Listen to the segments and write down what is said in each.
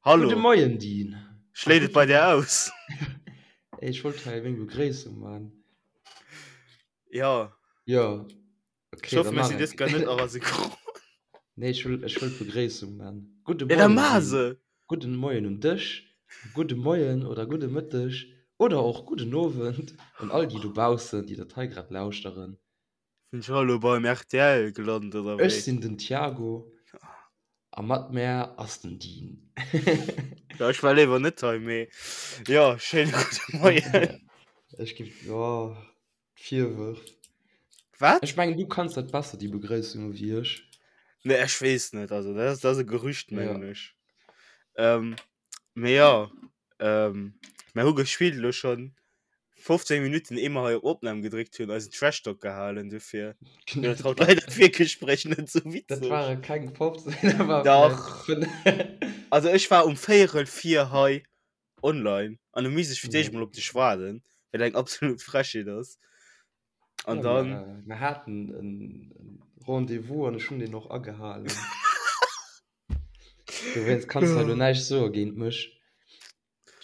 Hallo. Gudde Moien, Dean. Schléit et bei dir aus? Ey, ech wollt hei eng Begréissung man. Ja. Ja. Okay, ich hoffe, wir sind jetzt gar nicht aber synchron. Nee, ich will, ich will Begréissung man. Gudde Moien. Ja, dann mach se. Gudden Moien un dech, gudde Moien oder gudde Mëtteg oder och gudden Owend un all déi dobaussen, déi dat hei grad lauschteren. Sinn ech elo beim rtl gelant oder wéi? Ech sinn den Thiago a mat mär ass den Dean. Ja, ech war léiwer net hei, mee jo, schéine gudde Moien. Ech gi, jo, d'Virwërf. Wat? Ech mengen, du kanns dat besser, déi Begréissung, ewéi ech. Nee, ech weess net, also dat ass, dat ass e Gerücht, mengen ech. Ähm, mee jo, ähm, mer hu gespillt elo schonn 15 Minuten ehe mer hei op Opnam gedréckt hunn, eisen Trash Talk gehalen, dofir Genau, dat haut leider d'Virgespréich net sou Dat witzeg. ware keng 15, dat war Dach. vläicht 5. Also ech war um véierel vir hei online an hu misst ech fir d'éischt Ja. mol op dech waarden, wat eng absolut Frechheet ass. An Ja, dann. mer, mer haten en Rendez-vous an ech hunn deen och agehalen. Dowéinst kanns du hei elo näischt soe géint mech.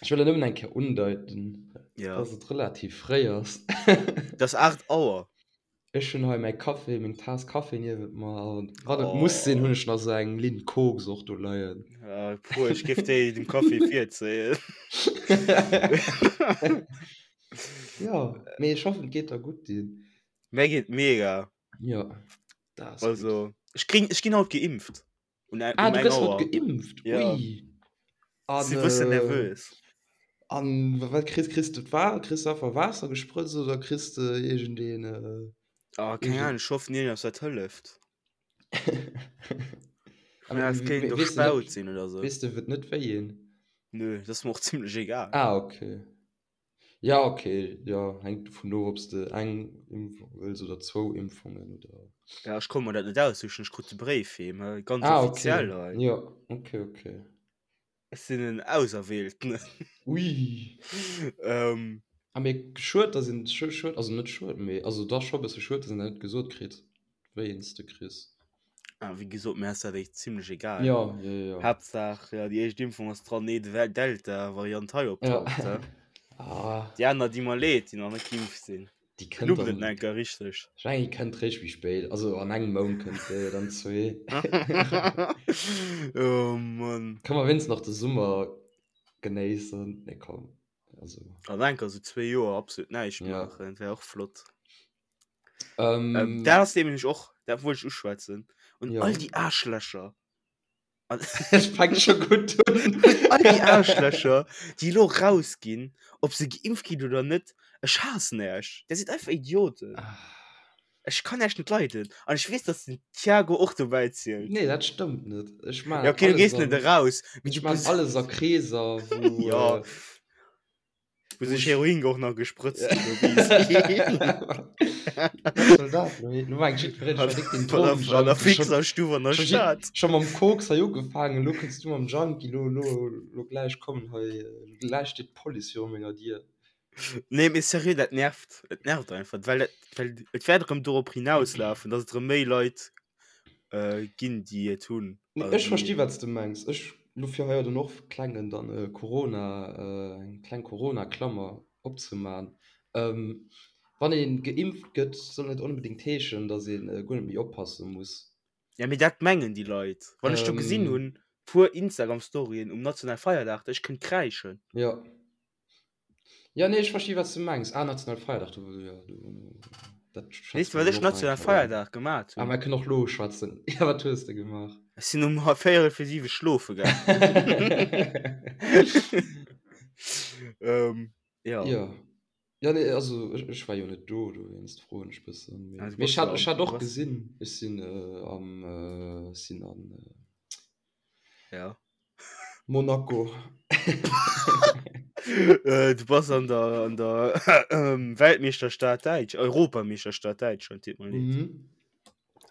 Ech wëll nëmmen eng Kéier undeiten, Ja. dass et relativ fréi ass. Et ass 8 Auer. Ech hunn hei mäi Café, meng Taass Café niewent mer an wann et muss sinn, hunn ech nach esou eng Linn Koks och do leien. Ja, puer, ech géif déi dem Café virzéien. Jo, mee ech hoffen, et geet der gutt, Dean. Mär geet mega. Jo, dat ass gutt. Also, ech kring, ech ginn haut geimpft. Un, ah, um du gëss haut geimpft? Ja. Ui. An, Si bëssen äh, nervös. An wat kriss, kriss du d'Wa kriss du einfach Waasser gesprëtzt oder kriss du iergendeen äh, Ah, keng irgend- Ahnung, ech hoffen iergendeppes wat hëlleft. Aber Ja, es kéint we- och weess du net- Spaut sinn oder sou. Weess du, et net wéi een? Nö, dat ass mer och zimlech egal. Ah, okay. Ja, okay, jo, hänkt dovun of, ob s de eng Impfung wëlls oder zwou Impfungen oder. Ja, ech konnt mer dat net aussichen, ech krut de Bréif heem, he, ganz Ah, offiziell okay. hei. Jo, okay, okay. Ech sinn en Auserwählten. Ui. Ähm. Ah, mee schued, dass een, schued, also net schued, mee also dach scho e bësse schued, dass een dat net gesot kritt, wéi een s de kriss. Ah, wéi gesot, mir ass dat echt zimlech egal. Ja, ja, ja. Haaptsaach, ja, déi éischt Impfung ass dran, nee de Delta-Variant hei optaucht. Ja. Ja. Ah. Déi aner di mer leed, déi nach net geimpft sinn. Déi kënnt Knubbelt dann. et enker richteg. Ech mengen, déi kënnt réischt méi spéit. Also an engem Mount kënnt déi, oder an zwee. Oh Mann. Ka mer wéinstens nach de Summer genéissen. Nee, komm. Also. An enker sou zwee Joer absolut näischt Ja. maachen, wär och flott. Ähm, ähm, dat ass nämlech och, dat wollt ech uschwätzen. Und Ja. all déi Aarschlächer. Es fängt schon gut un. All déi Aarschlächer, déi elo rausginn, ob se geimpft ginn oder net, ech haassen Äech. Där sidd einfach Idioten. Ah. Ech kann Äech net leiden. An ech weess, dass den Thiago och dobäi zielt. Nee, dat stëmmt net. Ech maan Ja, okay, du alles gees net an, eraus. Mee ech du maan bist. alles a Kreeser, wou, Ja. äh, Wou wou sech ech. Heroin och nach gesprëtzt ginn. Wat soll dat elo heeschen? Elo mengt jiddwereen, ech wär déck den An der Drogenjunkie. Schon, Fixerstuff an der schon, Stad. schon mam Koks hei ugefaangen, elo kënns du mam Junkie, elo, elo, elo gläich kommen hei, elo gläich steet d'Police viru menger Dier. Nee, mee seriö, dat nervt. Et nervt einfach, well dat, well et wäert erëm dorop hinauslafen, dass et erëm méi Leit äh, ginn, déi et hunn. Nee, Also ech versti déi. wat s de mengs. Ech lo fir hei dann och klengen dann e Corona, äh, eng kleng Corona-Klammer opzeman. Ähm, wann ee geimpft gëtt, soll net onbedéngt heeschen, datt ee guer net méi oppasse muss. Ja, mee dat mengen déi Leit. Wann ech do gesinn Ähm, hunn, puer Instagram-Storyen um nationale Feierdag, ech kënnt kräischen. jo. Ja, nee, ech versti wat s du mengs. Ah, nationale Feierdag, do, jo, do, dat Weess schwätze de, mer wat dann ech och nach eng nationale Kéier un. Feierdag gemat Ah, hunn? mer kënnen och lo schwätzen. Ja, wat hues de gemaach? Ech sinn um véierel fir siwe schlofe gaangen. Ähm, ja. Ja. Ja, nee, also ech, ech war jo net do, dowéinst froen ech bëssen. Mee, Ah, du mee bass ech hat, jo ech am, hat du och bass, gesinn, ech sinn äh, am, äh, ech sinn an äh, ja. Monaco. Äh, du bass an der, an der ähm, Weltmeeschterstad Däitsch, Europameeschterstad Däitschland, deet mer leed. Mhm.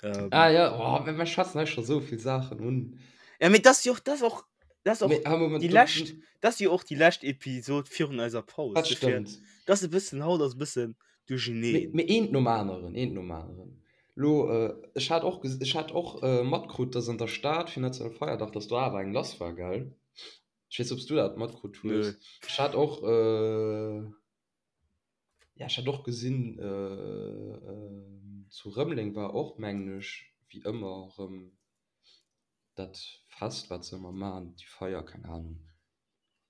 Ähm, Ah ja, oh, mir, mir schwätzen hei scho sou vill Saachen un. ja, mee das jo och, das och, das och Mee, ah, Moment, déi do, lescht, das jo och déi lescht Episod virun eiser Paus. dat Dofir, stëmmt. das e bëssen, haut ass e bëssen Mee, duercheneen. mee eent nom aneren, eent nom aneren. Lo, ech hat och, ech hat och matkrut, dass an der Stad fir Nationalfeierdag, dass do awer eng lass war, gell? Ech weess, ob s du dat matkrut hues. Ech hat och, äh, ja, ech hat och gesinn, äh, zu Rëmeleng war och, mengen ech, wéi ëmmer erëm dat Fest, wat se ëmmer maachen, déi Feier, keng Anung.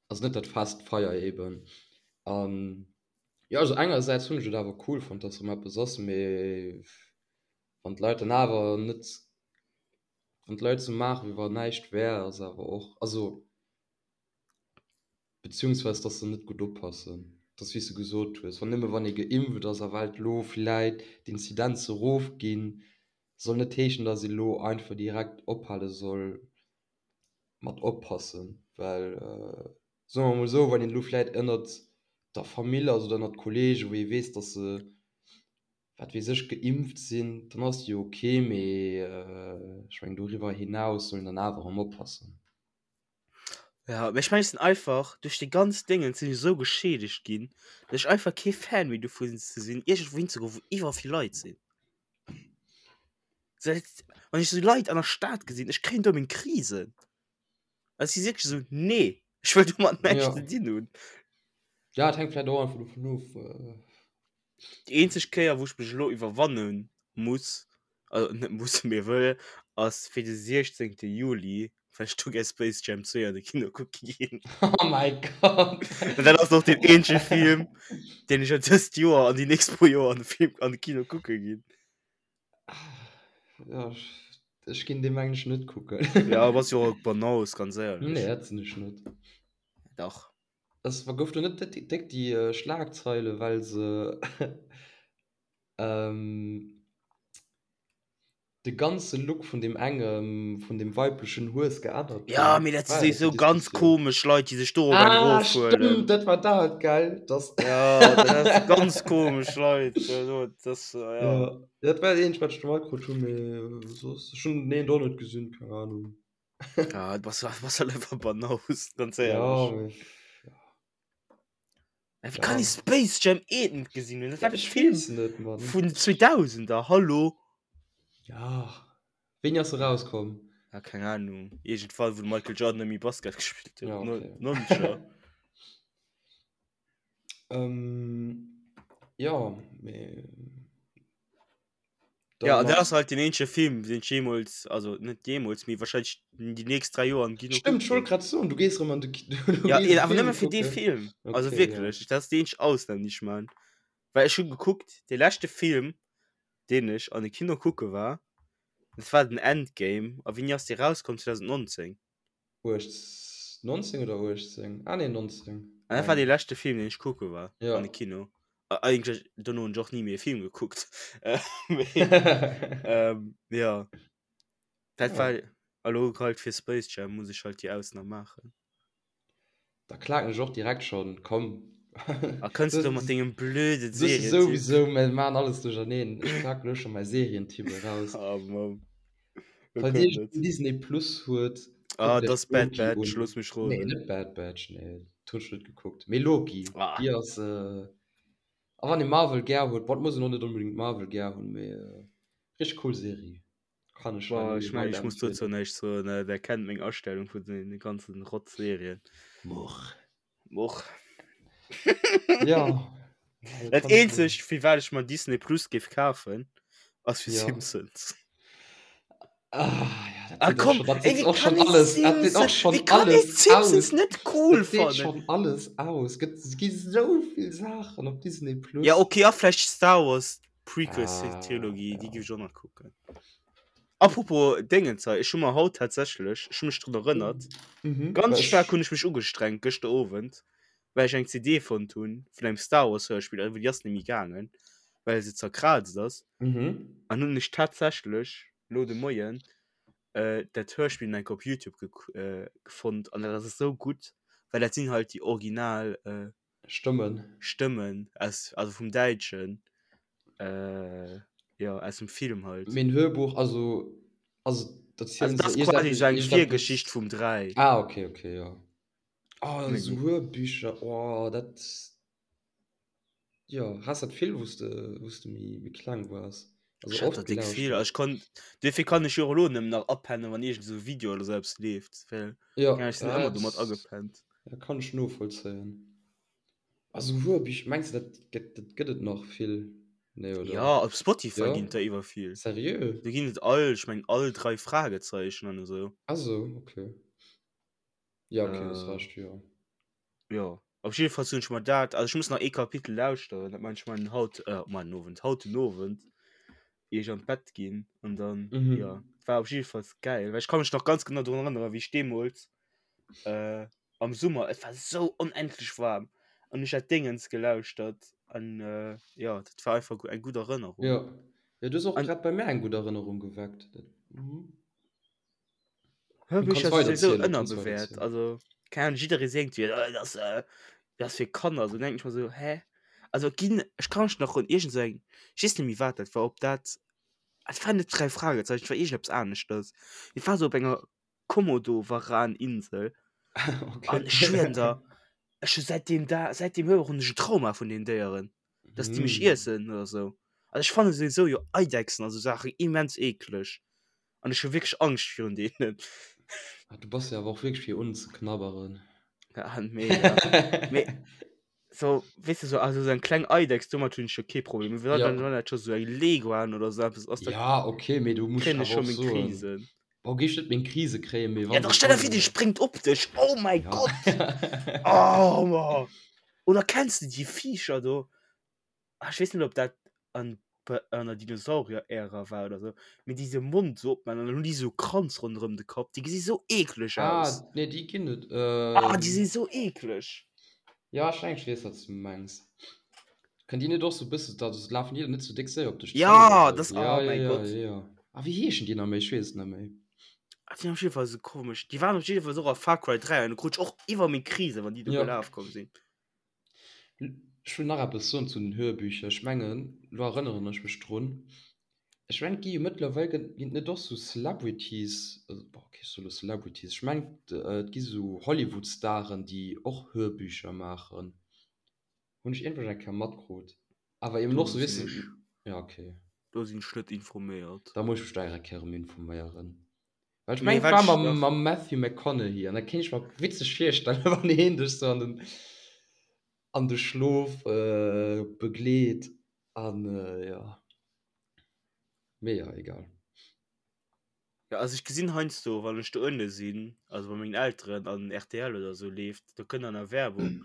Also net dat Fest, d'Feier eben. An jo, also engersäits hunn ech et awer cool fonnt, dass erëm eppes ass, mee wann d'Leit dann awer net Wann d'Leit sou maachen, wéi wann näischt wär, ass awer och, also beziehungsweise dass se net gutt oppassen. Et ass wéi s de gesot hues, wann nëmme wann ee geimpft ass a well elo villäit d'Inzidenze rofginn, soll net heeschen, dass ee lo einfach direkt ophale soll mat oppassen. Well soe mer emol esou, wann een elo vläit ënnert der Famill ass oder ënnert Kollegen, wou ee weess, dass se wat weess ech, geimpft sinn, dann ass jo ok, mee ech mengen doriwwer hinaus soll een dann awer erëm oppassen. Ja, mee ech mengen ech sinn einfach duerch déi ganz Déngen sinn ech esou geschiedegt ginn, datt ech einfach kee Fan méi dovun ze sinn iergendwou hinzegoen, wou iwwer vill Leit sinn. Seit, wann ech esou Leit an der Stad gesinn, ech kréien do meng Krisen. Also si wierklech esou, nee, ech wëll domat näischt Ja. ze dinn hunn. Ja, et hänkt vläicht och einfach dovun of. Déi eenzeg Kéier wou ech mech elo iwwerwanne muss, also net muss mee wëll, ass fir de 16 Juli, well ech do gär Space Jam 2 an de Kino kucke ginn. Oh mäi Gott! An dat ass och deen eenzege Film, deen ech dëst Joer an déi nächst puer Joer an de Film an de Kino kucke ginn. Ja, ech ginn dee mengen ech net kucken. Ja, bass jo och Banaus, ganz éierlech. Nee, dat sinn ech net. Dach. Es war gouf do net déck déi Schlagzeile well se de ganze Look vun deem engem vun deem weiblechen Hues geännert hunn? Ja mee dat si War dat déi souwisou ganz Diskussioun? komesch Leit déi sech dorop eng Ah erofhuelen. stëmmt, dat war dat gell? Dass Ja dat si ganz komesch Leit also dat ja. Ja dat war dat eenzegt wat ech do matkrut hunn, mee soss ech hunn den eent och net gesinn, keng Ahnung. Ja, du bass, bass halt einfach Banaus, ganz Ja, ehrlich. mee, ja. Ja, wie kann Ja. ich Space Jam 1 net gesinn hunn? Das Ja, war ich Film weess net, Mann. vun 2000er, hallo? Ja. Wéini ass e rauskomm? Ja, keng Ahnung. Irgendwann, wou de Michael Jordan net méi Basket gespillt huet. Ja, No- okay. 90er. Ähm, ja, mee. Ja, dat ass halt den eenzege Film, deen ech jeemools, also net jeemools, mee wahrscheinlech déi nächst 3 Joer am Kino Stëmmt, ech wollt grad soen, du gees erëm an de Kino. Ja, awer nëmme fir dee Film. Also Okay, wierklech, dat ass déi eenzeg Ausnam, déi ech man. Well ech hu gekuckt, dee leschte Film, deen ech an de Kino kucke war, dat war den Endgame. A wéini ass dee rauskomm? 2019? 18, 19 oder 18? Ah nee, 19. An dat war dee leschte Film, deen ech kucke war Ja. an de Kino. A- Eigentlech, dono hunn ech och ni méi e Film gekuckt. Äh, mee, ähm, ja. Dat Ja. war elo halt fir Space Jam muss ech halt déi Ausnam maachen. Da klaken ech och direkt schon, komm. A kënns du mat dengem blöde Du bist Serientipp? sowieso, mir machen alles durcherneen. Ech klaken elo schon mäi Serientipp eraus. Ah, Mann. Lo Falls kënnt Dir et. Disney Plus huet, Ah, kuckt das iech Bad Loki Batch, un. looss mech Nee, roden. net Bad Batch, nee, dat hunn ech net gekuckt. Mee Loki, Ah. déi ass, äh, a wann ee Marvel gär huet, bon, et muss een och net onbedéngt Marvel gär hunn, mee äh, richteg cool Serie. Kann ech hei Boah, nëmme ech mengen, ech muss dozou weiderempfehlen. näischt soen, äh, der kennt meng Astellung vun den ganzen Rotzserien. Much. Much. Ja. Dat eenzegt, fir wat ech mer Disney Plus géif kafen, ass fir Ja. Simpsons. Ah, ja, dat Ah, seet och komm, schon, dat ey, seet wie och kann schon ee alles, dat seet och Simpsons, schon wie kann ee alles Simpsons aus. net cool Dat seet fannen? schon alles aus. Gëtt, et gi sou vill Saachen op Disney Plus. Ja, okay, a vläicht Star Wars Prequel Ah, Trilogie, déi ja. géif ech och nach kucken. Apropos Déngens hei, ech hu mer haut tatsächlech, ech hu mech drun erënnert, Mhm. ganz Well staark ech, hunn ech mech ugestrengt gëschter Owend, well ech eng CD fonnt hunn vun engem Star Wars Hörspill, awer déi ass net méi gaangen, well se zerkraazt ass. mhm. An hunn ech tatsächlech lo de Moien äh, dat Hörspill nach eng Kéier op Youtube gek äh, gefonnt an dat ass esou gutt, well dat sinn halt déi original äh, Stëmmen. Stëmmen aus, also vum Däitschen, äh, jo, aus dem Film halt. Mee en Hörbuch, also, also Also erzielen dat se ass quasi iergendeppes, esou eng iergendeppes. Virgeschicht vum 3. Ah, okay, okay, jo. Oh, Méi esou gutt. Hörbücher, oh, dat, jo, has dat vill, wou s de, wou s de méi, méi kleng waars? Also Ech hat oft der déck vill. gelauschtert. Also ech konnt, duerfir kann ech jo och elo nëmmen nach apennen, wann iergend esou e Video oder sou eppes leeft, well Ja, ja, ech sinn ëmmer dat domat agepennt. ja, kann ech novollzéien. Also Hörbücher, mengs de dat gëtt dat gëtt et nach vill? Nee, oder? Ja, op Spotify Ja? ginn et der iwwer vill. Seriö? Do ginn et all, ech mengen all 3 Fragezeichen an esou. Ah sou, okay. Ja, okay, hues Äh. Recht, jo. Jo, op jiddefalls hunn ech mer dat, also ech muss nach ee Kapitel lauschteren, dat man ech man haut, äh, man den Owend, haut den Owend, ier ech an d'Bett ginn an dann, Mhm. jo, war op jiddefalls gäil, well ech ka mech nach ganz genau drun erënneren, wéi ech deemools, äh, am Summer, et war sou onendlech waarm an ech dat Déngens gelauschtert an, äh, jo, dat war einfach eng gutt Erënnerung. Jo, jo, du hues och An. grad bei mär eng gutt Erënnerung geweckt, dat, mhm. Hörbücher si souwisou ënnerbewäert. Also, keng Ahnung, jidderee seet jo, dat ass, dat ass fir Kanner. Sou denken ech mer sou, hä? Also et ginn, ech ka mech nach un iergend sou eng, ech weess net méi wat dat war, ob dat, et war net Drei Fragezeichen, et war iergendeppes aneschters. Et war sou op enger Komodo-Varan-Insel. An ech schwieren der, ech hu säit deem Dag, säit deem Hörbuch hunn ech en Trauma vun deenen Déieren, dass déi mech iessen oder sou. Also ech fanne souwisou jo Eidechsen a sou Saachen immens eekleg. An ech hu wierklech Angscht virun deenen. Ah, du bass jo awer och wierklech fir unzeknabberen. Ja, mega. Mee so, weess de, so, also sou eng kleng Eidechs, domat hunn ech jo kee Problem. Mee wann Ja. wann dat scho sou eng Leguan oder sou eppes ass, da Ja, okay, mee du muss kréien ech awer scho och meng soen, Krisen. boah, géif ech net meng Krise kréien, mee Ja, wann doch, se stell der vir, kommen. déi spréngt op dech. Oh mäi Ja. Gott! Oh, ma. Oder kenns de déi Viecher do? Ah, ech weess net, ob dat an an der Dinosaurier-Ära war oder sou, mee déi se Mond sou opman an dann hunn déi sou Kranz ronderëm de Kapp. Déi gesi sou eekleg Ah, aus. nee, déi ginn et. Ah, déi Ähm, si sou eekleg. ja, ech mengen, ech weess, wat s du mengs. Kënnt déi net och sou e bësse, da lafen déi net sou déck séier op dech zou Ja, oder sou? das, Ja, oh ja, mäi ja, Gott. ja, ja. Ah, wéi heeschen déi nach méi? Ech weess et net méi. Ah, déi sinn op jidde Fall sou komesch. Déi waren op jidde Fall och a Far Cry 3 an do krut ech och iwwer meng Krise, wann déi do Ja. gelaf komm sinn. Ech wëll nach eppes soen zu den Hörbücher. Ech mengen, elo erënneren ech mech drun, ech mengen, et gi jo mëttlerweil, gëtt, ginn et net och sou Celebrities, also, bon, okay, ech soe lo Celebrities, ech mengen, et gi sou Hollywood-Staren, déi och Hörbücher maachen. Hunn ech iergendwou eng Kéier matkrut. Awer eben Do och sou, weess sinn de, ech, ja, okay. do sinn ech net informéiert. Da muss ech mech do eng Kéier erëm informéieren. Well ech Mee mengen, et wat war ech mam, nach. mam Matthew McConaughey an da kéint ech mer witzeg virstellen, wann heen dech sou an den, an de Schlof begleet an jo. Mee jo, egal. Ja, also ech gesinn heiansdo, wann ech do ënne sinn, also bei mengen Elteren an rtl oder sou leeft, do kënnt an der Werbung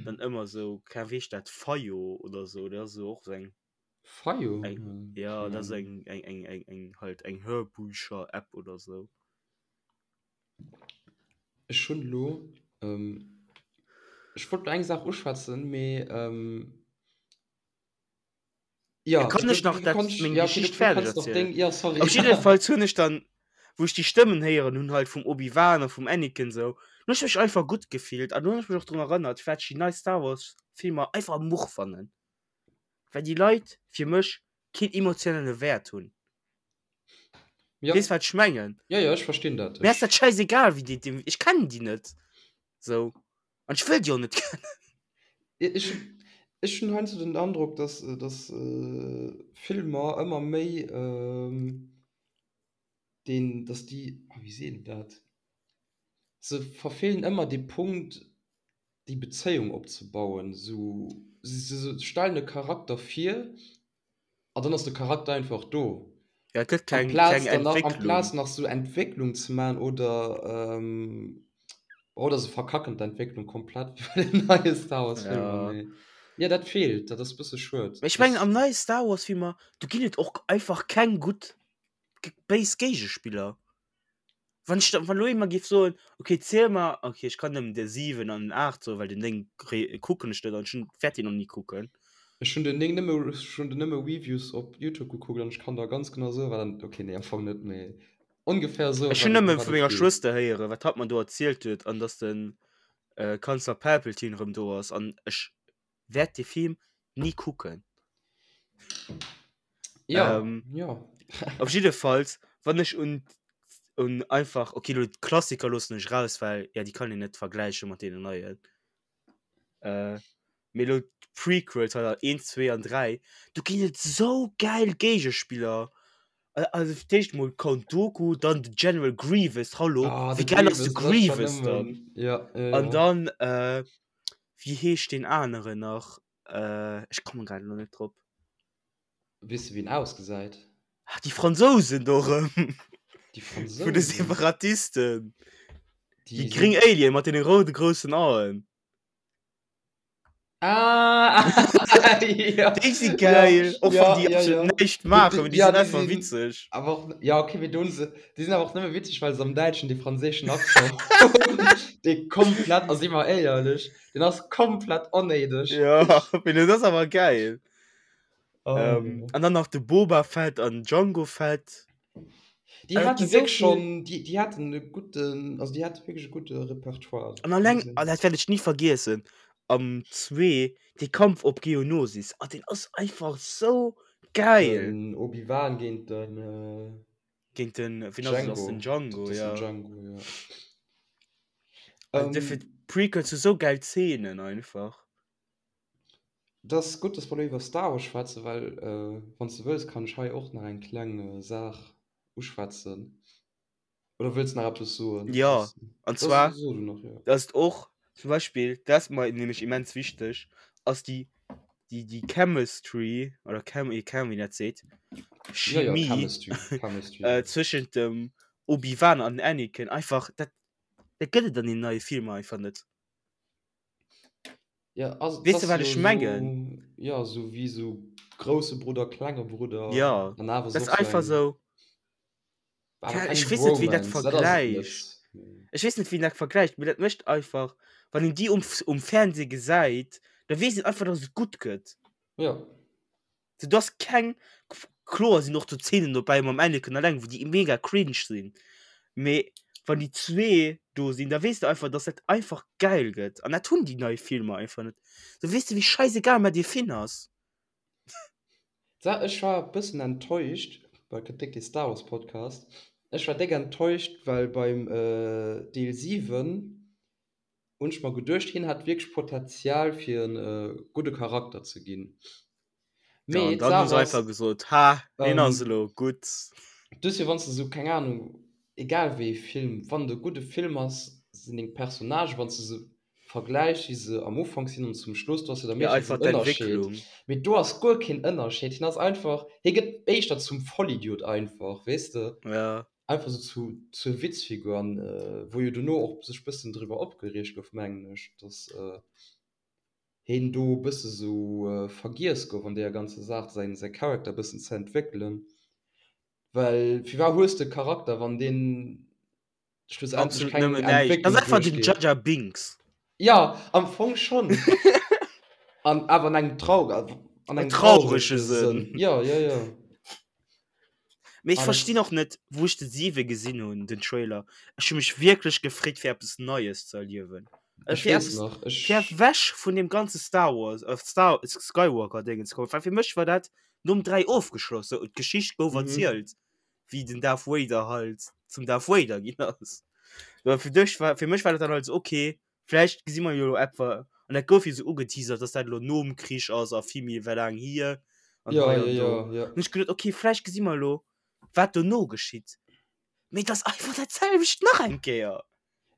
dann ëmmer sou, keng Ahnung, wéi heescht dat, Fayot oder sou, dat ass sou och sou eng. Fayot? Eng, ja, dat ass eng, eng, eng, eng, eng, halt eng Hörbücher-App oder sou. Ech hunn elo, ech wollt elo eng Saach uschwätzen, mee ja, ja, kann du, ech nach du dat, kannst, meng ja, okay, du, Geschicht du fäerdeg kannst nach erzielen? deng, ja, sorry. Op jiddefalls hunn ech dann, wou ech déi Stëmmen héieren hunn, halt vum Obi-Wan a vum Anakin sou, hunn ech mech einfach gutt gefillt an hunn ech mech och drun erënnert, firwat ech déi nei Star Wars Filmer einfach much fannen. Well déi Leit fir mech keen emotionelle Wäert hunn. Ja. Weess wat ech mengen? Ja, ja, ech verstinn dat. Mir ass dat schäisegal wéi déi, déi, ech kennen déi net sou an ech wëll déi och net kennen. Ech, ech hunn heiansdo den Androck, dass, dass Filmer ëmmer méi deen, dass déi, ah wéi seet een dat, se verfeelen ëmmer dee Punkt, déi Bezéiung opzebauen, sou se stellen e Charakter vir an dann ass de Charakter einfach do. Ja, et gëtt keng, Amplaz keng dann nach, Entwécklung. amplaz nach sou Entwécklung ze man oder oder se verkacken d'Entwécklung komplett wéi bei den neie Star Wars Filmer, Ja. mee jo dat feelt, dat ass bësse schued. Mee ech mengen Dass am neie Star Wars Filmer, do ginn et och einfach keng gutt béis Géigespiller. Wann ech wann elo ee mer géif soen, okay ziel mer, okay ech kann nëmmen de 7 an den 8 soen, well den 9 kri kucken ech net an ech hunn wäert deen och ni kucken. Ech hunn den 9 nëmme, ech hunn den nëmme Reviews op Youtube gekuckt an ech kann der ganz genau soen, wat an, okay nee am Fong net, mee ongefähr soen, Ech hunn wat et, nëmme ëm wat vu et menger geet. Schwëster héieren, wat hatt mer do erzielt huet an dass de Kanzler Palpatine erëm do ass an ech wäert dee Film ni kucken. Ja, Ähm, ja. Op jiddefalls, wann ech un un einfach, okay, lo d'Klassiker loossen ech raus, well ja déi kann een net vergläiche mat deenen neien. Äh, mee. Mee elo d'Prequels, also 1, 2 an 3, do ginn et sou gäil Géigespiller. Also fir d'éischt mol Count Dooku, dann de General Grievous, hallo, Ah, wéi de gäil ass de Grievous, dat ass schon Grievous dann? nëmmen, ja, ja, An ja. dann, äh, wéi heescht deen aneren nach? Äh, ech kommen grad elo net drop. Weess de wéi en ausgesäit? Ah, déi Fransousen do erëm. Déi Vun de Fransousen? Separatisten. Déi Déi gréng sinn. Alien mat deene roude groussen Aen. Ah, ja, Déi si ja, geil, och wann ja, déi ja, absolut ja. näischt Déi, maachen, mee déi, déi ja, sinn déi einfach sinn witzeg. awer och, ja, okay, mee do hunn se, déi sinn awer och nëmme witzeg, well se am Däitschen dee franséischen Accent hunn, dee komplett, a si mer éierlech, deen ass komplett onnéideg. Ja, mee dat ass awer geil. Oh, Ähm, ja. an dann nach de Boba Fett an Django Fett. Déi Also, et hate gi sou wierklech vill. schonn, déi, déi haten e gudden, also déi hate wierklech e gudde Repertoire. An alleng, an dat wäert ech ni vergiessen, am 2, dee Kampf op Geonosis, ah, deen ass einfach sou geil! Den Obi-Wan géint den Géint den, wien ass et, ass den Django. Django, Dat ass den ja. Django, ja. Also dofir, Ähm, d'Prequels hu sou geil Zeenen einfach. Et ass gutt, dass mer elo iwwer Star Wars schwätzen, well wann s de wëlls, kann ech hei och nach eng kleng Saach uschwätzen. Oder wëlls de nach eppes soen? Jo, an Da zwar, so du nach, jo. dass et och zum Beispill, dat ass mer nämlech immens wichteg, ass déi, déi, déi Chemistry oder Chem, keng Ahnung, wéi een dat seet, Jo, jo, Chemie Chemistry, Chemistry, jo. zwëschent dem Obi-Wan an dem Anakin einfach, dat, dat gëtt et an deenen neie Filmer einfach net. Ja, ass, Weess de das wat jo ech mengen? so, ja, so wie so große Bruder, klenge Bruder. Ja, An awer dat ass och so einfach eng, sou. awer Keine, ech keng weess net wéi dat Bromance, dat ass et vergläicht. net. Nee. Ech weess net wéi dat vergläicht, mee dat mécht einfach, wann een déi um, um Fernseh gesäit, da weess een einfach, dass et gutt gëtt. Ja. So, du hast keng, kloer sinn och do Zeenen dobäi mam Anakin alleng, wou déi mega cringe sinn, mee wann déi zwee do sinn, da weess de einfach, dass dat einfach geil gëtt. An dat hunn déi nei Filmer einfach net. So, weess de, wéi scheißegal mer dee Finn ass? Sa, ech war e bëssen enttäuscht, well gëtt déck dee Star Wars Podcast, ech war déck enttäuscht, well beim Deel 7 hunn ech mer geduecht, hien hat wierklech Potenzial fir e gudde Charakter ze ginn. Ja, Mee an dann hu d'Saach se einfach ass, gesot, ha, hien ass ähm, elo gutt. duerfir wann s de esou, keng Ahnung, egal wéi ee Film, wann et e gudde Film ass, sinn deng Personnagen, wann s de se vergläichs, wéi se am Ufank sinn an zum Schluss, do ass jo da Ja, meeschtens einfach en Ënnerscheed. d'Entwécklung. Mee do ass guer keen Ënnerscheed. Hien ass einfach, hie gëtt éischter zum Vollidiot einfach, weess de? Ja. Einfach sou zu, zur Witzfigur an wou jo dono och sech bëssen driwwer opgereegt gouf, mengen ech, dass heen do e bësse sou vergiess gouf an deeër ganzer Saach, säin, säi Charakter e bëssen ze entwéckelen. Well firwat hues de e Charakter, wann deen schlussendlech Absolut keng nëmmen näischt. Dat ass Entwécklung einfach den duerchgeet? Jar Jar Binks. Jo, am Fong schonn. An awer an engem trau, an engem Traurege traurege Sënn. Sënn. Jo, jo, jo. Mee ech Ah, verstinn dat och net, wou ech de 7 gesinn hunn, den Trailer, ech hu mech wierklech gefreet fir eppes Neies ze erliewen. Äh, Ech fir weess eppes, nach, fir ech. ewech vun deem ganze Star Wars, äh, Star, Skywalker Déngen ze kommen, well fir mech war dat nom 3 ofgeschloss, sou d'Geschicht gouf Mhm. erzielt, wéi den Darth Vader halt zum Darth Vader ginn ass. Well fir dech war, fir mech war dat dann halt sou, okay, Vläicht gesi mer jo elo etwa, an dat gouf jo sou ugeteasert, dass dat elo nom Krich ass a vill méi wéi laang hier an Ja, hei ja, an do. ja, ja. An ech geduet, okay, vläicht gesi mer elo, wat dono geschitt. Mee et ass einfach dat selwecht nach eng Kéier.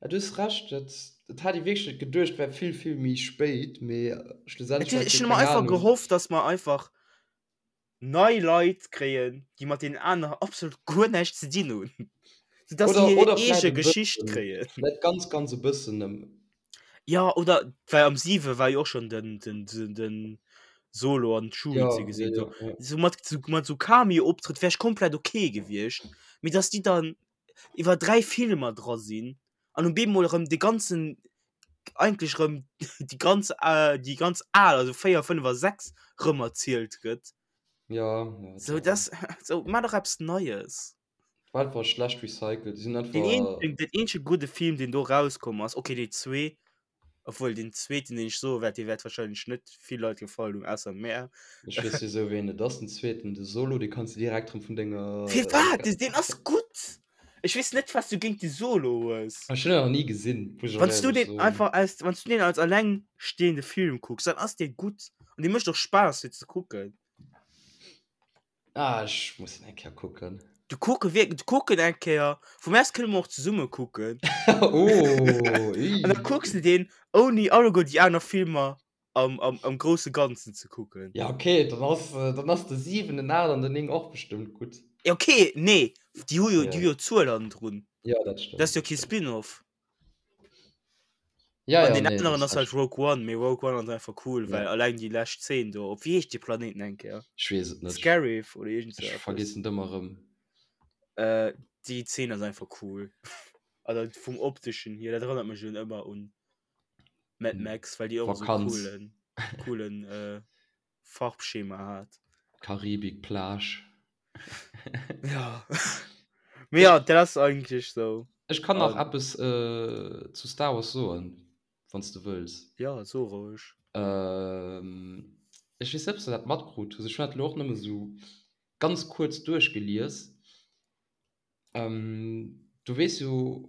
Ja, du hues Recht, dat, dat hat ee wierklech net geduecht, war vill, vill méi spéit, mee Et schlussendlech hunn, war et ech jo hunn ëmmer keng einfach Ahnung. gehofft, dass mer einfach nei Leit kréien, déi mat deenen aneren absolut guer näischt ze dinn hunn, sou dass Oder, déi hir oder vläit eege e Geschicht bëssen, kréien. vläit ganz, ganz e bëssen ëm. Ja, oder well am 7 war jo och schon den, den, den, den Solo an Chewie Ja, ze ja, gesinn. ja, So, ja. so mat, so, mat so Cameo-Optrëtt wär ech komplett okay gewiescht. Mee dass déi dann iwwer 3 Filmer dra sinn an um bemol erëm de ganzen eigentlech erëm déi ganz äh, déi ganz al, also 4, 5 a 6 rëm erzielt gëtt. Ja, ja, So dat das so maach dach eppes Neies. war einfach schlecht recycelt. Déi sinn Den einfach. eenzegen, den eenzege gudde Film, deen do rauskomm ass, okay, déi zwee, obwuel deen zweeten, deen ech soe wäert, dee wäert wahrscheinlech net vill Leit gefallen hunn, ausser mär. Ech weess jo sou wéi en et ass, den zweeten, de Solo, dee kanns de direkt rëm vun denger. Firwat? Deen ass gutt! Ech weess net, wat s du géint de Solo hues. Ech hunn en nach ni gesinn, muss ech och Wann s du éierlech deen soen. einfach als, wann s du deen als allengstehende Film kucks, dann ass dee gutt an dee mécht och Spaass fir ze kucken. Ah, ech muss en eng Kéier kucken. Du kucke wierk, du kuck en eng Kéier. Vu mir aus kënne mer och zesumme kucken. Oh, An da kucks de deen ouni alleguer déi aner Filmer am, am, am grousse Ganzen ze kucken. Ja, okay, dann ass, dann ass de 7, den 8 an den 9 och bestëmmt gutt. Ja, okay, nee, déi hu jo, déi hu jo Zuel hannendrun. Ja, dat stëmmt. Dat ass jo kee Spin-off. Ja, An ja, deen nee, aneren du ass halt recht. Rogue One, mee Rogue One ass einfach cool, well Ja. alleng déi lescht Zeen do, op wéi heescht dee Planeten eng Kéier? Ech weess et net. Scarif oder iergend sou Ech eppes. vergessen et ëmmer erëm. Äh, déi Zeen ass einfach cool. Also vum opteschen hier, dat erënnert mech un ëmmer un Mad Max, well déi och esou Vakanz. coolen, coolen äh, Farbschema hat. Karibik, Plage. Ja. Mee ja, dat ass eigentlech sou. Ech kann nach An- eppes äh, zu Star Wars soen, wann s du wëlls. Ja, so roueg. Ähm, ech weess net, ob s du dat matkrut hues. Ech hunn dat elo och nëmme sou ganz kuerz duerchgelies. Ähm, du weess jo,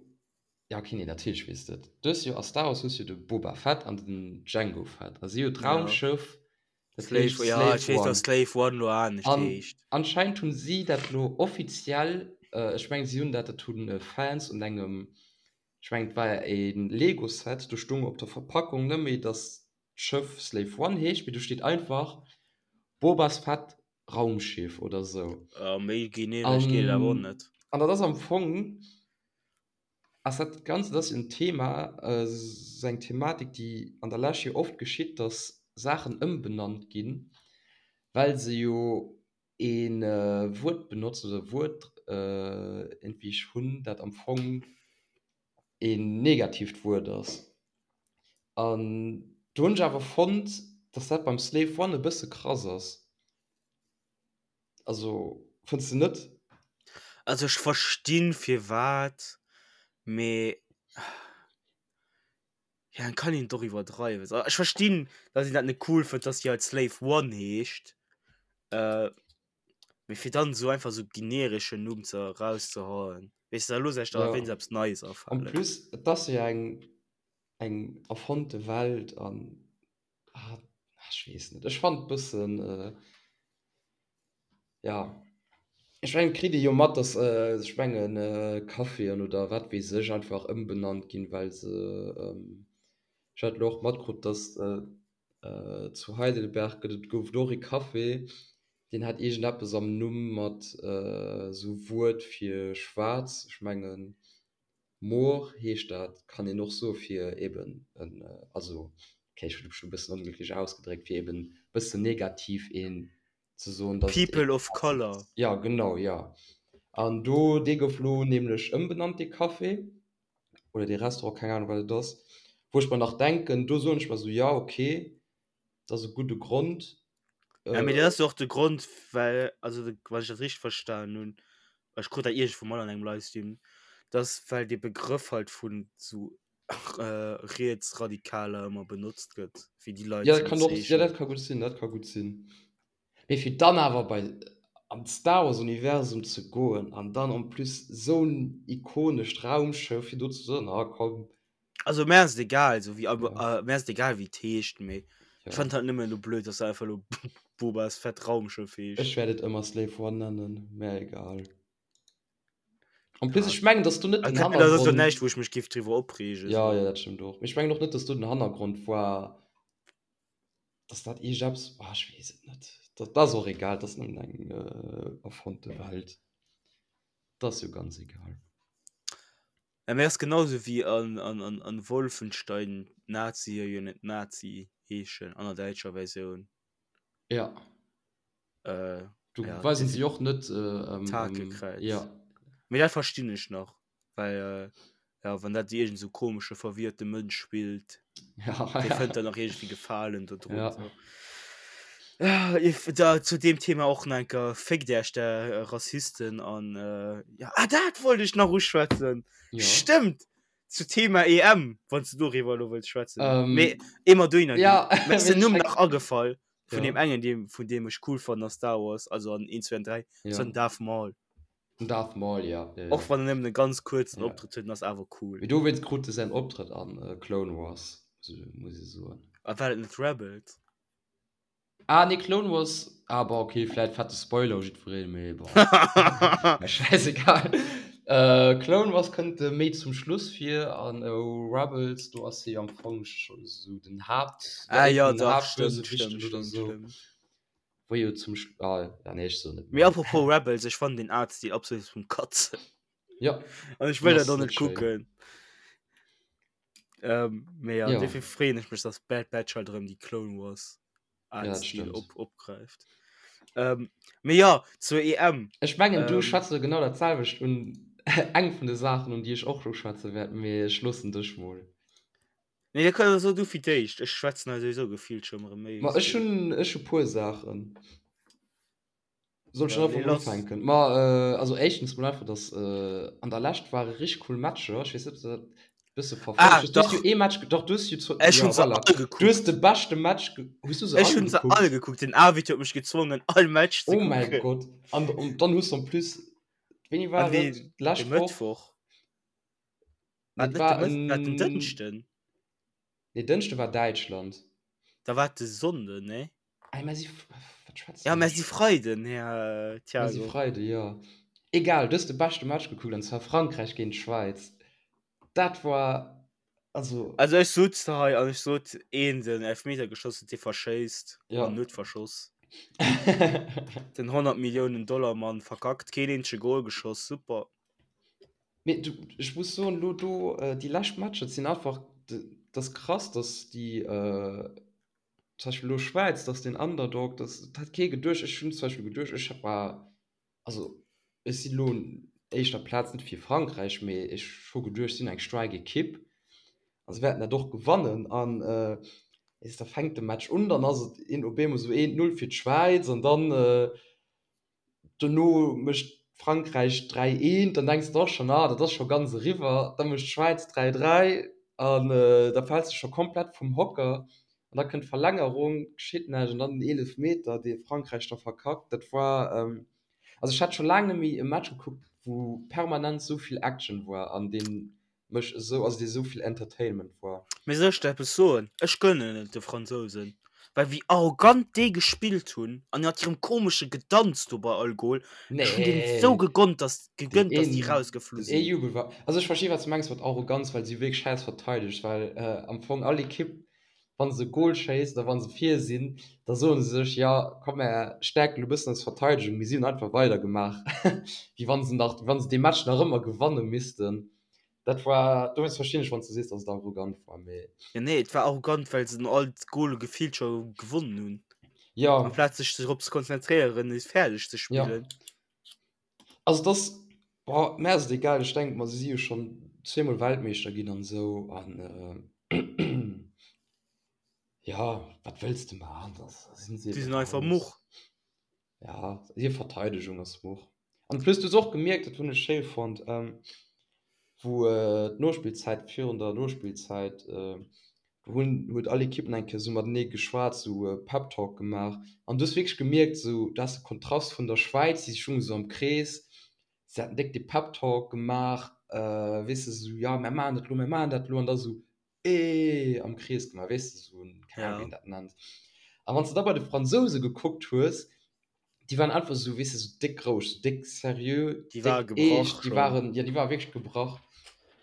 ja okay, nee, natierlech weess de et. Du hues jo a Star Wars hues jo de Boba Fett an den Jango Fett a si hu d'Raumschëff, dat Slave, heescht ja, Slave ech weess, One. dass Slave One lo anescht An heescht. anscheinend hunn si dat lo offiziell, ech mengen si hunn dat, dat hunn Fans un engem, ech mengen et war e Lego Set, do stung op der Verpackung net méi, dass d'Schëff Slave One heescht, mee do steet einfach Bobas Fett Raumschiff oder sou. Ja, méi generesch geet et awer och net. An dat ass am Fong, ass dat Ganzt, dat ass en Thema, sou eng Thematik, déi an der Lescht jo oft geschitt, datt Saachen ëmbenannt ginn, well se jo ee Wuert benotzen oder e Wuert iergendwéi hunn, dat am Fong een negatiivt Wuert ass. An do hunn ech awer fonnt, dass dat beim Slave One e bësse krass ass. Also, fënns de net? Also ech verstinn firwat, mee ja et kann een et och iwwerdreiwen. Ech verstinn, dass een dat net cool fënnt, dass déi halt Slave One heescht, Mee fir dann esou einfach esou genereschen Numm ze erauszehauen, weess de, da looss ech der Ja. wéinst eppes Neies En afalen. plus, et ass jo eng, eng erfonnte Welt an, ah, ech weess net, ech fannen et bëssen, ja, ech mengen, et kritt ee jo mat, dass, ech mengen, Caféen oder wat weess ech einfach ëmbenannt ginn, well se, ech hat elo och matkrut, dass Zu Heidelberg gëtt et, gouf et och ee Café, deen hat iergendeppes am Numm mat esou Wuert fir schwaarz, ech mengen Moor heescht dat, kann een och soe fir eben en, also okay ech hunn mech elo e bëssen onglécklech ausgedréckt, fir eben e bëssen negativ een ze soen, dass et ee People of Color. Jo genau, jo. An do, dee gouf elo nämlech ëmbenannt, dee Café. oder dee Restaurant, keng Ahnung wat et ass, wou ech mer nach denken, do soen ech mer esou, ja okay, dat ass e gudde Grond. Ja, mee dat ass jo och de Grond, well, also wann ech dat richteg verstanen hunn, ech krut dat iergendwou mol an engem Livestream, dass well dee Begrëff halt vun sou Rietsradikaler ëmmer benotzt gëtt, fir déi Leit Ja, ze dat kann och, ja bezeechnen. dat ka gutt sinn, dat ka gutt sinn. Mee fir dann awer bei an d'Star Wars Universum ze goen an dann en plus esou en ikonescht Raumschëff fir do ze soen, ah komm. Also mär ass et egal, esou wéi Ja. mär ass et egal wéi et heescht, mee ech Ja. fannen et halt nëmmen elo blöd, dass se einfach elo Bobas Fett Raumschëff heescht. Ech wäert et ëmmer Slave One nennen, mär egal. En plus Ja. ech mengen, dass do net den Dat ass jo Hannergrond. näischt wou ech mech géif driwwer opreegen, Ja, esou. ja, dat stëmmt och. Mee ech mengen och net, dass do den Hannergrond war. Dass dat iergendeppes, ah ech weess et net, dat ass och egal, dat ass nëmmen eng erfonnte Welt, dat ass jo ganz egal. Ja, mee ass genau sou wéi an, an, an, an Wolfenstein d'Nazie jo net Nazi heeschen an der däitscher Versioun. Ja. Äh, Do ja, weisen se jo och net, ähm, D'Hakekräiz. ja. Mee dat verstinn ech nach. Well ja wann dat iergend sou komesche verwirrte Mënsch spillt, ja, dee ja. fënnt dann nach iergendwéi Gefalen do drun. Ja. So. Ja, if, da, zu deem Thema och nach enker féckt Äech der Rassisten an äh, ja, ah, dat wollt ech nach uschwätzen. Ja. Stëmmt! Zu Thema EM, wann s du doriwwer elo wëlls schwätzen. Ähm, Mee emer dohinner ginn. ja, Mir ass den mee Numm ech nach agefall vun Ja. deem engen, deem, vun deem ech cool fannen a Star Wars, also an 1, 2 an 3, Ja. das war den Darth Maul. Den Darth Maul, ja. ja, ja. Och wann en nëmmen e ganz kuerzen ja. Optrëtt huet, ass awer cool. Mee dowéinst krut e säin Optrëtt an äh, Clone Wars, muss ech soen. A war dat net Rebels? Ah nee, Clone Wars, ah bon, okay, vläit fette Spoiler u jiddwereen, mee bon, mir schäisegal. Äh, Clone Wars kënnt e méi zum Schluss vir an Rebels, do ass hie am Fong scho sou den Haapt, Ah ja, dach, stëmmt, stëmmt, oder stëmmt, sou. stëmmt. Wou jo zum Sch ah, ja, nee, ech soen net Mee méi. apropos Rebels, ech fannen den Artstil absolut zum Katzen. Ja, An ech den wëll dat ass och net net schéin. kucken. Ähm, mee ja, Ja. dofir freeën ech mech, dass Bad Batch halt erëm déi Clone Wars Ja, dat Artstil stëmmt. op opgräift. Ähm, mee ja, zur EM. Ech mengen, du Ähm, schwätz elo genau dat selwecht un, eng vun de Saachen, un déi ech och elo schwätze wäert, mee ech loossen dech mol. Nee, da kann, so du fir d'éischt. Ech schwätzen hei souwisou gefillt schon erëm méi Ma wéi ech du. hunn, ech hu puer Saachen. Soll ech Ja, dann nee, einfach mol lass. ufänken? Ma äh, also éischtens mol einfach, dass äh, an der Lescht ware richtig cool Matcher. Ech weess net, ob du dat bësse verfollegt Ah, hues. Du hues jo dach. ee Match, doch, du hues jo zu, Ech ja, hunn se voilà. all Du hues de gekuckt. beschte Match, ge hues du se Ech all hunn se gekuckt? all gekuckt. Den Arvid huet mech gezwongen, all Match ze Oh mäi kucken. Gott. An, an dann hues du en plus, wéini An war et? deen, de D'lescht Woch? Mëttwoch. War Nee, et net de war Mëtt, war et den en, Dënschden? nee, Dënschde war Däitschland. Da war et de Sonnden, nee? Ei, mä si, wat schwätzen Ja, mä ech? si Freiden, Här Mä si Thiago. Freide, jo. Egal, du hues de beschte Match gekuckt, an zwar Frankräich géint d'Schwäiz. Dat war, also. Also ech sot hei an ech sot, een den Elfmeter geschoss huet, dee verschéisst Ja. an huet verschoss. Den 100 Milliounen Dollar Mann verkackt, keen eenzege Goal geschoss, super. Mee du, ech muss soen, elo do déi lescht Matcher, dat sinn einfach, dat ass krass, datt déi, zum Beispill elo Schwäiz, datt den Underdog, datt, dat hat kee geduecht. Ech hunn zum Beispill geduecht, ech war, also ech sinn elo un éischter Plaz net fir Frankräich, mee ech hu geduecht, si sinn eng staark Ekipp a se wäerten dat och gewannen. An weess de, da fänkt de Match un, dann ass et een op eemol esou 1, 0 fir d'Schwäiz an dann, Dono mécht Frankräich 3, 1, dann denks de och schonn, ah dat ass scho ganz eriwwer. Da mécht d'Schwäiz 3, 3 an da fäls de scho komplett vum Hocker an da kënnt d'Verlängerung, geschitt näischt an dann den Eelefmeter, dee Frankräich da verkackt. Dat war, also ech hat scho laang net méi e Match gekuckt, wou permanent esou vill Action war an dee mech esou, also dee esou vill Entertainment war. Mee soll ech der eppes soen? Ech gönnen et de Fransousen, well wéi arrogant déi gespillt hunn an mat hirem komesche Gedanz do bei all Goal, ech hunn deenen et esou Nee, gegonnt, dass, den gegönnt, dass déi een, rausgeflu den ee sinn. Jubel war, also ech versti wat s du mengs mat Arroganz, well si hu wierklech schäiss verteidegt, well am Fong all Ekipp, wa se e Goal schéisst oder wa se vir sinn, da soe se sech, jo komm mär stäerken elo e bëssen eis Verteidegung, mee si hunn einfach weidergemaach, wéi wa se nach, wéi wa se dee Match nach ëmmer gewanne missten. Dat war, dowéinst verstinn ech, wann s du sees, datt et arrogant war, mee. Jo nee, et war arrogant, well se all d'Gole gefillt scho gewonnen hunn. Jo. Amplaz sech drop ze konzentréieren, es fäerdeg ze spillen. Jo. Also et ass, boah, mär ass et egal, ech denke mer, se si jo schonn zweemol Weltmeeschter ginn an esou an jo, wat wëlls de maachen, da sinn se Déi ebe sinn einfach raus. much. Ja, hir Verteidegung ass much. An plus du hues och gemierkt, dat hunn ech schéi fonnt, wou d'Nospillzäit, virun der Nospillzäit, do hunn, huet all Ekipp nach eng Kéier esou matenee geschwat, esou e Pep Talk gemaach. An du hues wierklech gemierkt, esou, du has de Kontrast vun der Schwäiz, déi stoungen esou am Krees, se haten déck de Pep Talk gemaach, weess de, esou, jo, mär maachen dat elo, mär maachen dat elo, an da esou, Eeeee am Krees gemaach, weess de, sou en, keng Ahnung, wéi een dat nennt. A wann s de da bei de Fransouse gekuckt hues, déi waren einfach sou, weess de, sou déck roueg, sou déck seriö, Déi ware déck gebrach eescht, déi schonn. waren, jo, déi ware wierklech gebrach.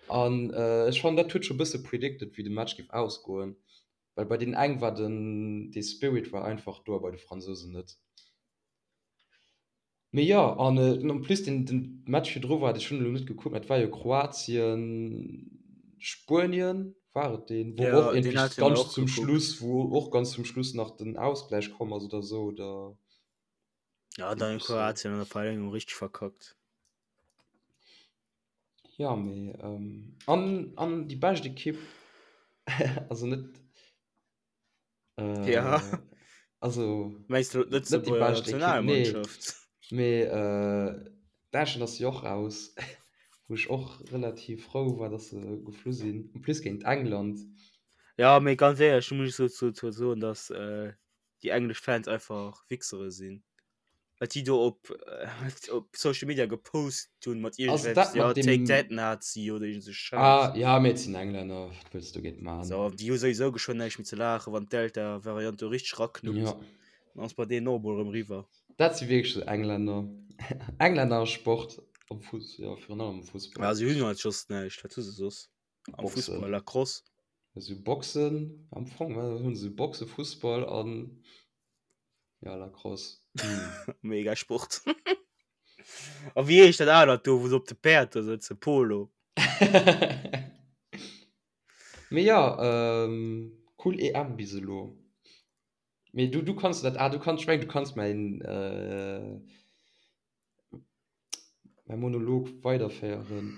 An ech fannen, dat huet scho bësse predicted, wéi de Match géif ausgoen, well bei deenen eng war den, dee Spirit war einfach do a bei de Fransousen net. Mee jo, an en plus den den Match virdru war, ech hunn elo net gekuckt, mä et war jo Kroatien, Spuenien war et deen, wou och Ja, deen iergendwéi hate mir ganz och zum gekuckt. Schluss, wou och ganz zum Schluss nach den Ausgläich komm ass oder sou, oder Ja, dann iergendwéi sou. Kroatien an der Verlängerung richteg verkackt. Jo, mee an an déi bescht Ekipp, also net Äh, Ja. Also, Meinst du net déi d'Lëtzebuerger bescht Ekipp, nee. Nationalmannschaft? Mee äh, Däitschland ass jo och raus, wou ech och relativ frou war, dass se geflu sinn. En plus géint England. Ja, mee ganz éierlech, do muss ech dozou soen, dass äh, déi englesch Fans einfach Wichsere sinn. Wat déi do op, op Social Media gepost hunn mat iergendwelchen, ja, take that Nazi oder iergend sou Schäiss. Ah, ja, mee et sinn Englänner, wat wëlls du dogéint man? So, déi hu souwisou geschwënn näischt méi ze laachen, wann d'Delta-Variant do richteg raknuppt. Ja. Dann ass bei deenen och emol erëm eriwwer. Dat si wierklech sou Englänner. Englänner a Sport, am Fuss, jo, virun allem am Fussball. Ja, si hunn halt just näischt. Wat hu se soss? Am Boxen. Fussball, Lacrosse. Si hu Boxen am Fong, wat hunn se? Boxen, Fussball an ja, Lacrosse. Hm. Mega Sport. A wéi heescht dat anert do, wou se op de Päerd do sëtzen? Polo. Mee jo, ähm, cool EM bis elo. Mee du, du kanns dat, ah, du kanns, ech mengen, du kanns mäin, äh, Mäi Monolog weiderféieren.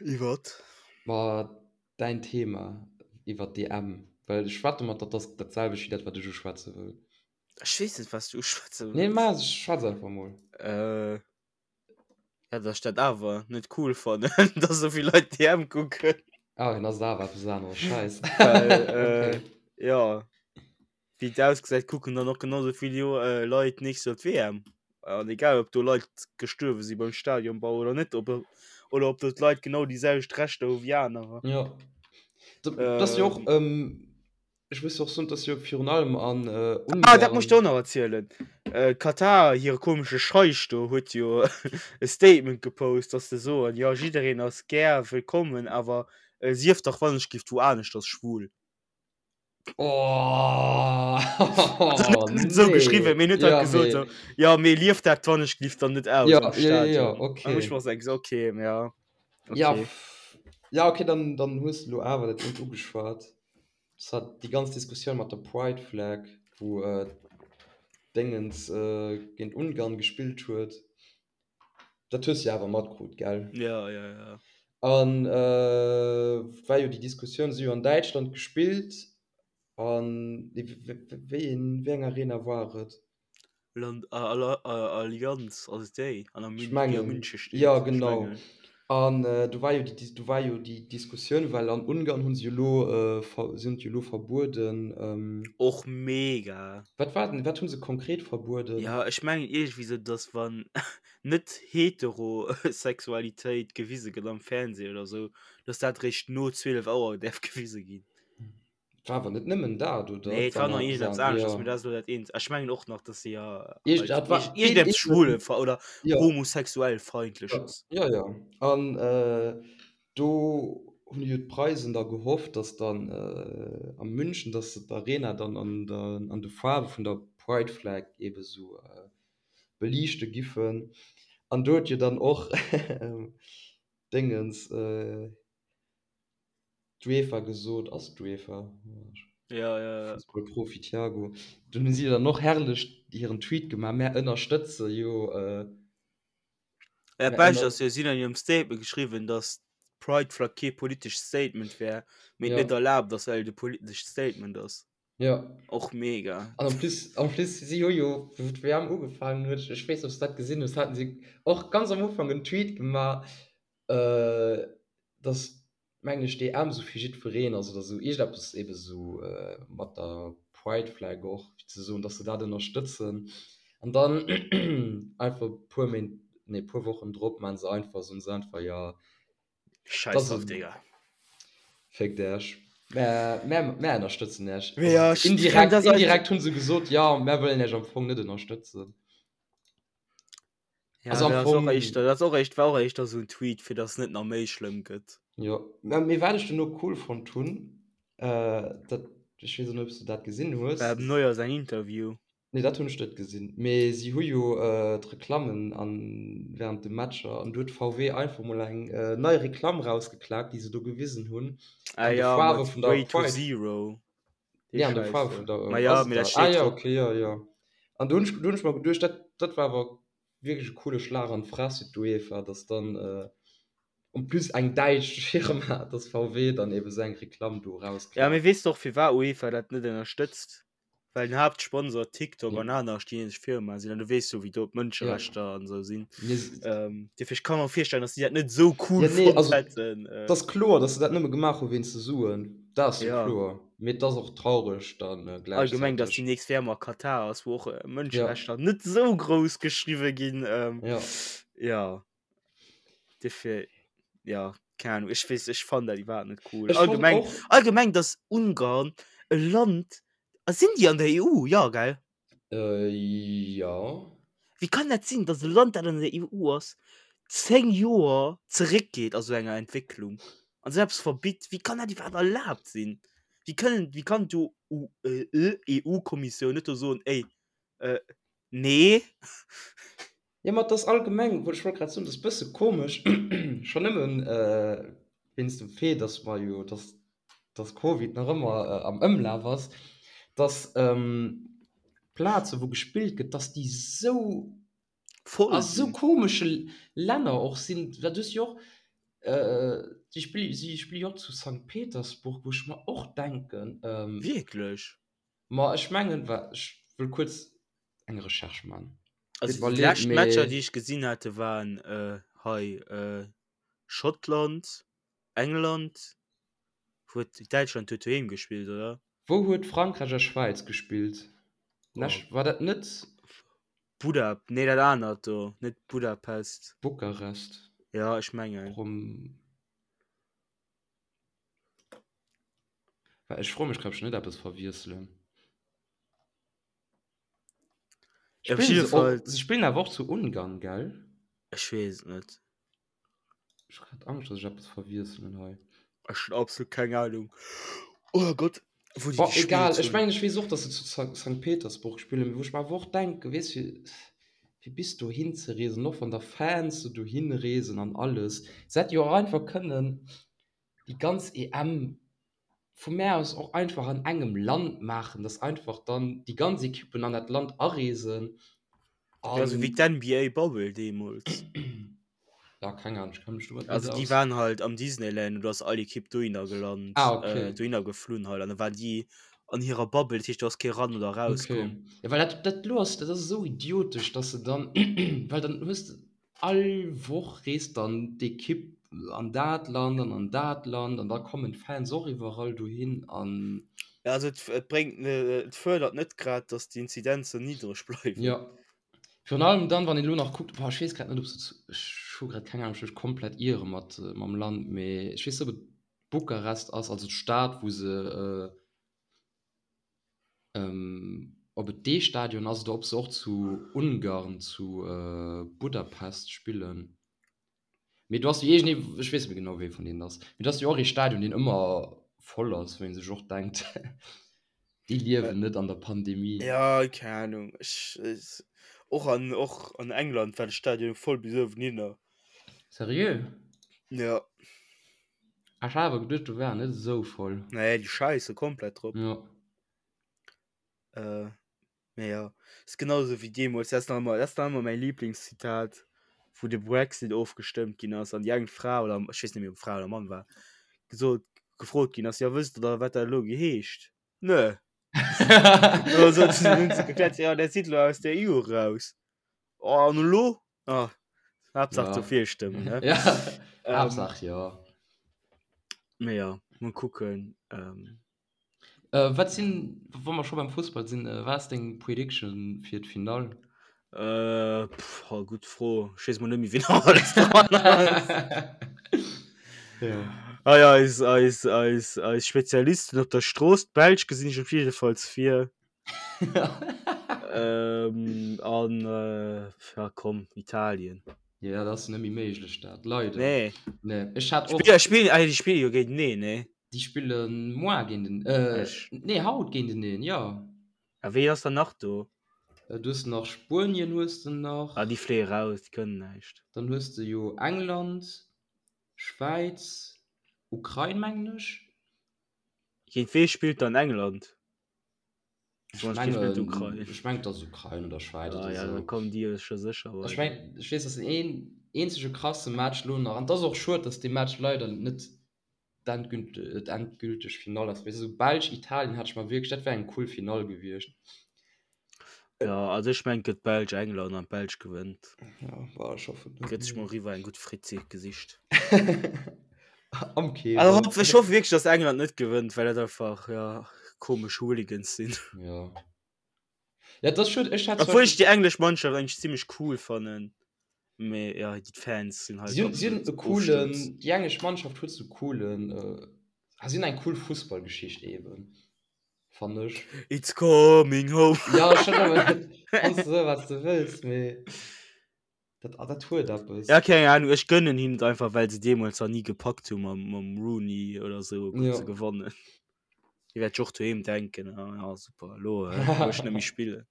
Iwwert? Ma däin Thema iwwert d'EM, well ech wette mat der, dat ass dat selwecht wéi dat, wat ech uschwätze wëll. Ech weess net, wat s du uschwätze wëlls. Nee, ma schwätz einfach mol. Äh, ja, dass ech dat awer net cool fannen, dass esou vill Leit d'EM kucken. Ah, dann ass et awer eppes aneres. Scheiss. Well, äh, jo. Wéi et ausgesäit kucken dann och genau sou vill Leit nächst Joer d'WM. An egal ob do Leit gestuerwe si beim Stadionbau oder net, ob oder ob do d'Leit genau déi selwecht Rechter hu wéi anerer. Jo. Dat ass jo och, ech muss jo och soen, dat ass jo virun allem an Ungarn. Ah, dat muss ech der och nach erzielen. Katar, hire komesche Scheich do huet jo e Statement gepost, dass se soen, jo jiddereen ass gär wëllkommen, awer sief dach wannechgift wou aneschters schwul. Oh, also, net, net so nee. geschrieben mir net ja, gesagt, so, ja mir lief dat wann ich lief dann net aus ja, ja, ja, okay. ich muss sagen, okay ja okay. ja ja okay dann dann hues du awer dat net ugeschwat das hat die ganz Diskussion mat der Pride Flag wo äh, Dingens äh, géint Ungarn gespielt huet Dat hues de jo awer matkrut, gell? Ja, ja, ja. An war jo déi Diskussioun, si hu jo an Däitschland gespillt an wéi een, wéi eng Arena war et? Land, Allianz, ass et déi an der Ech mengen, Münche steet? Jo, genau. An do war jo déi, do war jo déi Diskussioun, well an Ungarn hu se jo elo, si hunn et jo elo verbueden. Och mega. Wat war denn, wat hu se konkret verbueden? Jo, ech mengen iergendwéi sou, datt wann net Heterosexualitéit gewise gëtt am Fernseh oder sou, datt dat eréischt no 12 Auer däerf gewise ginn. Et war awer net nëmmen dat, oder? Nee, et war nach iergendeppes aneschters, mee dat ass elo dat eent. Ech mengen och nach, datt se jo Iergend, dat war iergendeppes schwule oder homosexuellfeindleches. Jo, jo. An do hunn jo d'Preisen da gehofft, datt dann a München, datt se d'Arena dann an der, an de Faarwe vun der Pride Flag eebe sou beliichte giffen. An do huet jo dann och Déngens, D'UEFA gesot, ass et d'UEFA? Ja, ja, ja. Fussballprofi Thiago. Dunn hu si dann och herrlech hiren Tweet gemaach, mär ënnerstëtze jo. Äh, ja, Bescht ass jo, si hunn an hirem Statement geschriwwen, datt d'Pride Flag kee politescht Statement wär, mee et Ja. net erlaabt ass, well et e politescht Statement ass. Ja. Och mega. An en plus, en plus si hu jo, wou d'WM ugefaangen huet, ech weess net, ob s de dat gesinn hues, haten si och ganz am Ufank en Tweet gemaach, äh, dass mengen ech d'EM sou fir jiddwereen ass oder sou iergendeppes ebe sou mat der Pride Flag och fir ze soen, dass se dat ënnerstëtzen an dann einfach e puer Méint, nee puer Wochen drop maachen se einfach, soen se einfach jo Scheiß drauf Digga. Féckt Äech, mär, mär, mär ënnerstëtzen Äech. Mee ja, ech indirekt, indirekt hunn se gesot, jo mär wëllen Äech am Fong net ënnerstëtzen. Ja, also am Fong, dat ass och éischter, dat ass och éischt, war och éischter esou en Tweet, fir dass et net nach méi schlëmm gëtt. Jo, mä mee wat ech duerno cool fonnt hunn, äh, dat, ech weess och net, ob s du dat gesinn hues. War dem Neuer säin Interview. Nee, dat hunn ech net gesinn. Mee si hu jo äh, d'Reklammen an während de Matcher, an do huet VW einfach mol eng äh, nei Reklamm rausgeklaakt, déi se do gewisen hunn, Ah an de ja, Faarwe mat vun der Way to Pride. Zero. Dee Nee, an de Schäiss Faarwe do. vun der, Ma ja, ass et mee dat dat? Ah steet ja, drop. okay, jo, jo. An do hunn ech, do hunn ech mer geduecht, dat, dat war awer wierklech e coole Schlag an d'Fress fir d'UEFA, dass dann en plus eng däitsch Firma, dass VW dann eben esou eng Reklamm do Ja, erausklappt. mee weess de och firwat UEFA dat net ënnerstëtzt? Well den Haaptsponsor TikTok an aner chinesesch Firmae sinn an du weess jo wéi do d'Mënscherechter an esou sinn. Ähm, dofir ech ka mer virstellen, dass déi dat net esou cool Ja, nee, fonnt also hätten. et ass kloer, dass se dat nëmme gemaach hu wéinst de Suen. Dat ass jo kloer. Mee et ass och traureg dann gläichzäiteg. Allgemeng, dass déi nächst WM a Katar ass, wou och Mënscherechter net esou grouss geschriwwe ginn. Jo. Jo. Dofir, jo, keng Ahnung, ech weess, ech fannen dat iwwerhaapt net cool. Allgemeng, allgemeng, dass Ungarn e Land, sinn déi an der EU? Jo, gell? Jo. Wéi kann dat sinn, datt e Land, dat an der EU ass, 10 Joer zeréckgeet a sou enger Entwécklung an esou eppes verbitt? Wéi kann dat iwwerhaapt erlaabt sinn? Wéi kënnen, wéi kann d'EU-Kommissioun net do soen, Ey, nee? Jo, ma et ass allgemeng, ech wollt grad soen, et ass e bësse komesch, schonn nëmmen wéinst dem Fait, datt mer jo, datt, datt Covid nach ëmmer am Ëmlaf ass, datt d'Plaze wou gespillt gëtt, datt déi esou Voll a sou sinn. komesche Länner och sinn. Well du hues jo och, si spille, si spille jo och zu Sankt Petersburg, wou ech mer och denken, Wierklech? Ma ech mengen, wa, ech wëll kuerz eng Recherche man. Also déi lescht Matcher déi ech gesinn hate waren hei Schottland, England, huet Däitschland huet doheem gespillt oder? Wou huet Frankräich a Schwäiz gespillt? War dat net. Buda, nee dat anert do, net Budapest. Bukarest. Jo ech mengen. Ech froe mech grad ob ech net eppes verwiesselen. Op jidde Fall. Se spillen awer och zu Ungarn, gell? Ech weess et net. Ech hu grad Angscht, dass ech eppes verwiesselen hei. Ech hunn absolut keng Ahnung. Oh Gott, wou déi gespillt hunn. Egal, ech mengen, ech weess och, dass se zu Sankt Petersburg spillen, mee wou ech mer awer och denken, weess fir, fir bis dohin ze reesen, och wann da Fans do dohin reesen an alles, se hätte jo och einfach kënnen déi ganz EM vu mär aus och einfach an engem Land maachen, dass einfach dann déi ganz Ekippen an dat Land areesen an. Ja, sou wéi d'NBA Bubble deemools. Ja, keng Ahnung, ech kenne mech domat net aus. Also déi waren halt am Disneyland und do ass all Ekipp dohinner gelant, ah, okay. äh, dohinner geflunn halt an da waren déi an hirer Bubble, dat heescht do ass kee ran oder raus okay. komm. Ja, well dat, dat lo ass, dat ass esou idiotesch, dass se dann, well dann hues de, All Woch reest dann d'Ekipp an dat Land an an dat Land an da kommen d'Fans och iwwerall dohin an. Ja, also et, et bréngt, et fërdert net grad, datt d'Inzidenzen niddreg bleiwen. Jo, virun allem dann, wann een elo nach kuckt, boah, ech weess grad net, ob se zu, ech hu grad keng Ahnung, ech mech komplett iere mat mam Land, mee ech weess net, ob et Bukarest ass, also d'Stad, wou se, Ob et dee Stadion ass oder ob se och zu Ungarn, zu Budapest spillen. Mee do ass jo iergendee, ech weess net méi genau wéi vun deenen ass, mee do ass jo och ee Stadion deen ëmmer voll ass, wou ee sech och denkt, déi liewen net an der Pandemie. Jo, keng Ahnung. Ech, och an, och an England war de Stadion voll bis uewenhinner. Seriö? Jo. Ech hat awer geduecht do war net esou voll. Nee, déi scheiße komplett drop. Ja. Äh, mee ja. Ist genauso wéi deemools, dat ass nach ëmmer, dat ass nach ëmmer mäi Lieblingszitat, wou de Brexit ofgestëmmt ginn ass an déi eng Fra oder ech weess net méi ob Fra oder Mann war, gesot, gefrot ginn ass, jo wësst der da wat dat elo geheescht? Nö. Dann sot se, hunn se gekläert, jo där sidd elo aus der EU eraus. Oh an elo? Ah, Haaptsaach Ja. dofir stëmmen, ne? Ja, Ähm, Haaptsaach jo. Mee ja, mol kucken. Ähm, Äh, wat sinn, wa mer scho beim Fussball sinn, äh, wat ass deng Prediction fir d'Finall? äh, pff, oh, gutt Fro. Ech weess mol net méi, wien nach alles dran ass. Ja. Ah ja, eis, eis, eis, eis Spezialisten op der Strooss, d'Belsch gesinn ech op jiddefalls vir. Ähm, an äh, ja, komm, Italien. Ja, dat ass net méi méiglech, dat leider. Nee. Nee, ech hat och. Spill, spill, ah, déi spille jo géinteneen, nee? Déi spille moar géint en, äh, Ech. nee, haut géinteneen, jo. A wee ass dann nach do? Äh, du hues nach Spuenien hues de nach. Ah, déi fléie raus, déi kënnen näischt. Dann hues de jo England, Schwäiz, Ukrain, mengen ech. Géint wee spillt dann England? Ech mengen, ech mengen, dass Ukrain oder Schwäiz ah, oder ja, sou. Da kommen déi scho sécher weider. Ech mengen, ech weess, dass den een eenzege krasse Match lo nach, an et ass och schued, dass dee Match leider net d'endgülteg Finall ass, well sou Belsch, Italien hat ech mer wierklech, dat wär eng cool Finall gewiescht. Ja, also ech mengen, et gëtt Belsch, England an d'Belsch gewënnt. Ja, bah, ech hoffen net. Gëtt sech mol eriwwer eng gutt Fritz gesicht. Am Kewen. Also hoff, ech hoffe wierklech, dass England net gewënnt, well dat einfach ja, komesch Hooligans sinn. Ja. Ja, das schon, ech hat Obwohl ich déi englesch Mannschaft eigentlich ziemlich cool fannen. Mee ja, die Fans sinn halt Si hunn, si hunn e absolut coolen, Ofsturz. déi englesch Mannschaft huet sou coolen, äh, ah, si hunn eng cool Fussballgeschicht eben, fannen ech. It's coming home. Ja, schon, awer kanns du soen, wat s de wëlls, mee dat, ah, dat huet eppes. Ja, keng Ahnung, ech gönnen hinnen et einfach, well se deemools nach ni gepackt hu mam, mam Rooney oder sou Ja. ze gewannen. Déi wäert sech och doheem denken, ah ja, super, elo äh, wou ech net méi spillen.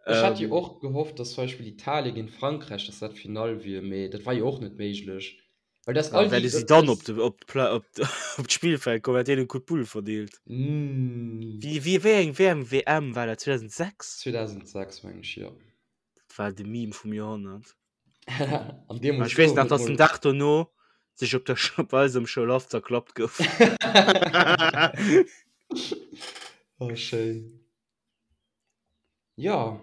Ech hat jo Ähm, och gehofft, dass zum Beispill Italien géint Frankräich, dass dat d'Finall wier, mee dat war jo och net méiglech. Well dass ja, all déi, wäerte si dat, dann op dass, de, op d'Pla op d' op d'Spillfeld kommen, wäert deenen Coup de Boule verdeelt. mm, Wéi, wéi, wéi eng, wéi eng WM war dat? 2006? 2006 meng ech, jo. Dat war de Meme vum Joerhonnert. An deemools Ech weess gouf nach, et dass den mol. Dag dono sech op der op eisem Schoulhaff zerklappt gouf. Oh, schéin. Ja.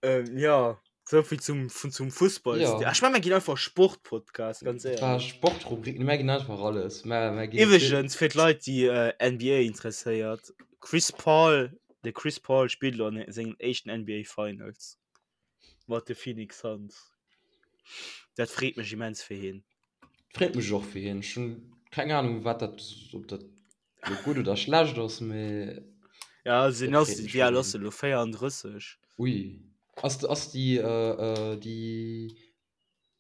Ähm, ja, souvill zum, vun, zum Fussball. Ja. Ech meng, mir ginn einfach Sportpodcast, ganz Dat war éierlech. Sportrubrik, mir ginn einfach alles. Mir, mir ginn Iwweregens, fir d'Leit, déi äh, NBA interesséiert, Chris Paul, de Chris Paul spillt elo an sengen éischten NBA Finals mat de Phoenix Suns. Dat freet mech immens fir hien. Freet mech och fir hien. Ech hunn keng Ahnung, wat dat, ob dat lo gutt oder schlecht ass, mee Ja, also dat den ass, freet mech wéi fir al ass hien. e lo? 34. Ui. Ass, ass déi, äh, déi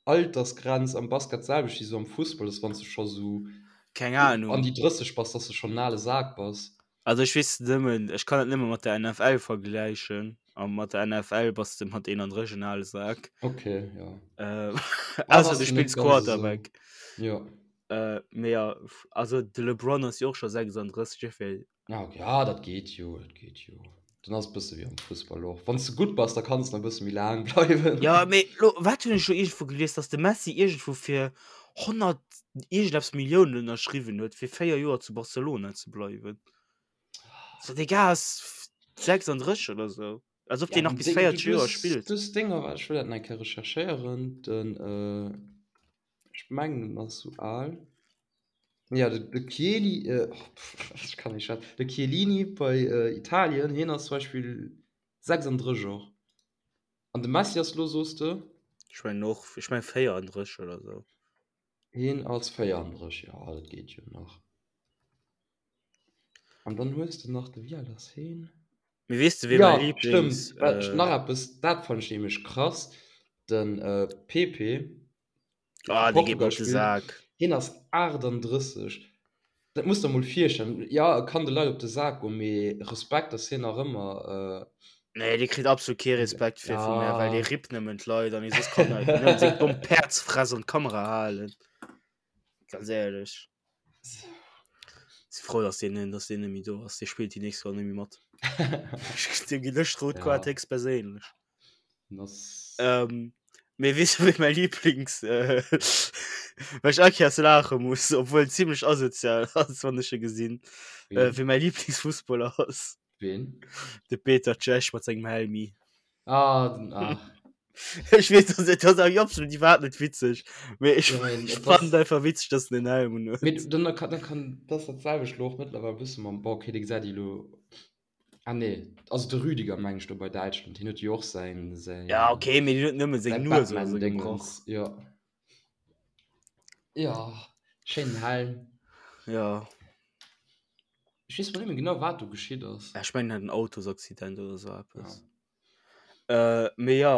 Altersgrenz am Basket d'selwecht wéi sou am Fussball, dass wann s de scho sou Keng an Ahnung. déi 30 bass, dass de schonn en ale Sak bass? Also ech weess nëmmen, ech kann et nëmme mat der NFL vergläichen a mat der NFL bass de mat 31 en ale Sak. Okay, ja. Äh, Ah, ausser ass du jo net spills ganz esou. Quarterback. Jo. Äh, mee ja, also de LeBron ass jo och scho 36, duerfir Ah, okay. Ah, dat geet jo, dat geet jo. Dann ass et bësse wéi am Fussball och. Wann s de gutt bass, da kanns de nach e bësse méi laang bleiwen. Ja, mee lo, wat hunn ech lo iergendwou gelies, dass de Messi iergendwou fir 100 iergendeppes Milliounen ënnerschriwwen huet, fir 4 Joer zu Barcelona ze bleiwen. So, dee Gars ass 36 oder sou. Als ob Ja, deen nach den bis Ding, du, 40 du Joer hues, spillt. du hues Dinger, ech wëll dat nach eng Kéier recherchéieren, den, äh, ech mengen, en ass sou al. Ja, de, de Chieli, äh, oh, pff, ech kann nicht schwätzen. De Chiellini bei äh, Italien, hien ass zum Beispill 36 och. An de Messi ass lo, soos de? Ech mengen och, ech mengen 34 oder sou. Hien ass 34, ja, dat geet jo nach. An dann hues de nach de, wéi al ass hien? Mee weess de, wee mäi Ja, Lieblings, stëmmt. Well, äh, nach eppes, dat fand ech nämlech krass, den äh, Pepe, Ah, dee geet mer Portugal op de spillt, Sak. hien ass 38. Dat muss der mol virstellen. Ja, e kann de Leit op de Sak goen, mee Respekt, dass hien nach ëmmer. Nee, dee kritt absolut kee Respekt fir vu mär, well dee Ja. rippt nëmmen d'Leit an hie soss kann e nëmmen seng domm Päerdsfress an d'Kamera halen. Ganz éierlech. Si frou, dass deen, dass deen net méi do ass. Dee spillt déi nächst Joer net méi mat. Deem ginn ech d'rout Kaart Ja. héchstperséinlech. Das Ähm, mee weess du, wéi mäi Lieblings, äh, well ech all Kéiers laache muss, obwuel en zimmlech asozial ass, wann ech e gesinn, äh, Ween? wéi mäi Lieblingsfussballer ass? Ween? De Peter Cech mat sengem Helmi. Ah, den, ach. Ech weess, dat ass, dat ass absolut iwwerhaapt net witzeg, mee ech, Ja, mee ech et fannen ass et einfach witzeg, dass en en Helm un Mee huet. dann kann, dann kann, dat ass dat selwecht lo och mëttlerweil e bësse mam, bon, okay, dee gesäit ee lo Ah nee, also de Rüdiger meng ech do bei Däitschland, hien huet jo och säin, säin, Ja, okay, mee deen huet nëmme seng säin Nues oder sou gebrach. Batman-Dingens, jo. Jo, schéinen Helm. Ja. Ech weess mol net méi genau, wat do geschitt ass. Ech mengen, en hat en Autosaccident oder sou eppes. Ja. Äh, mee ja.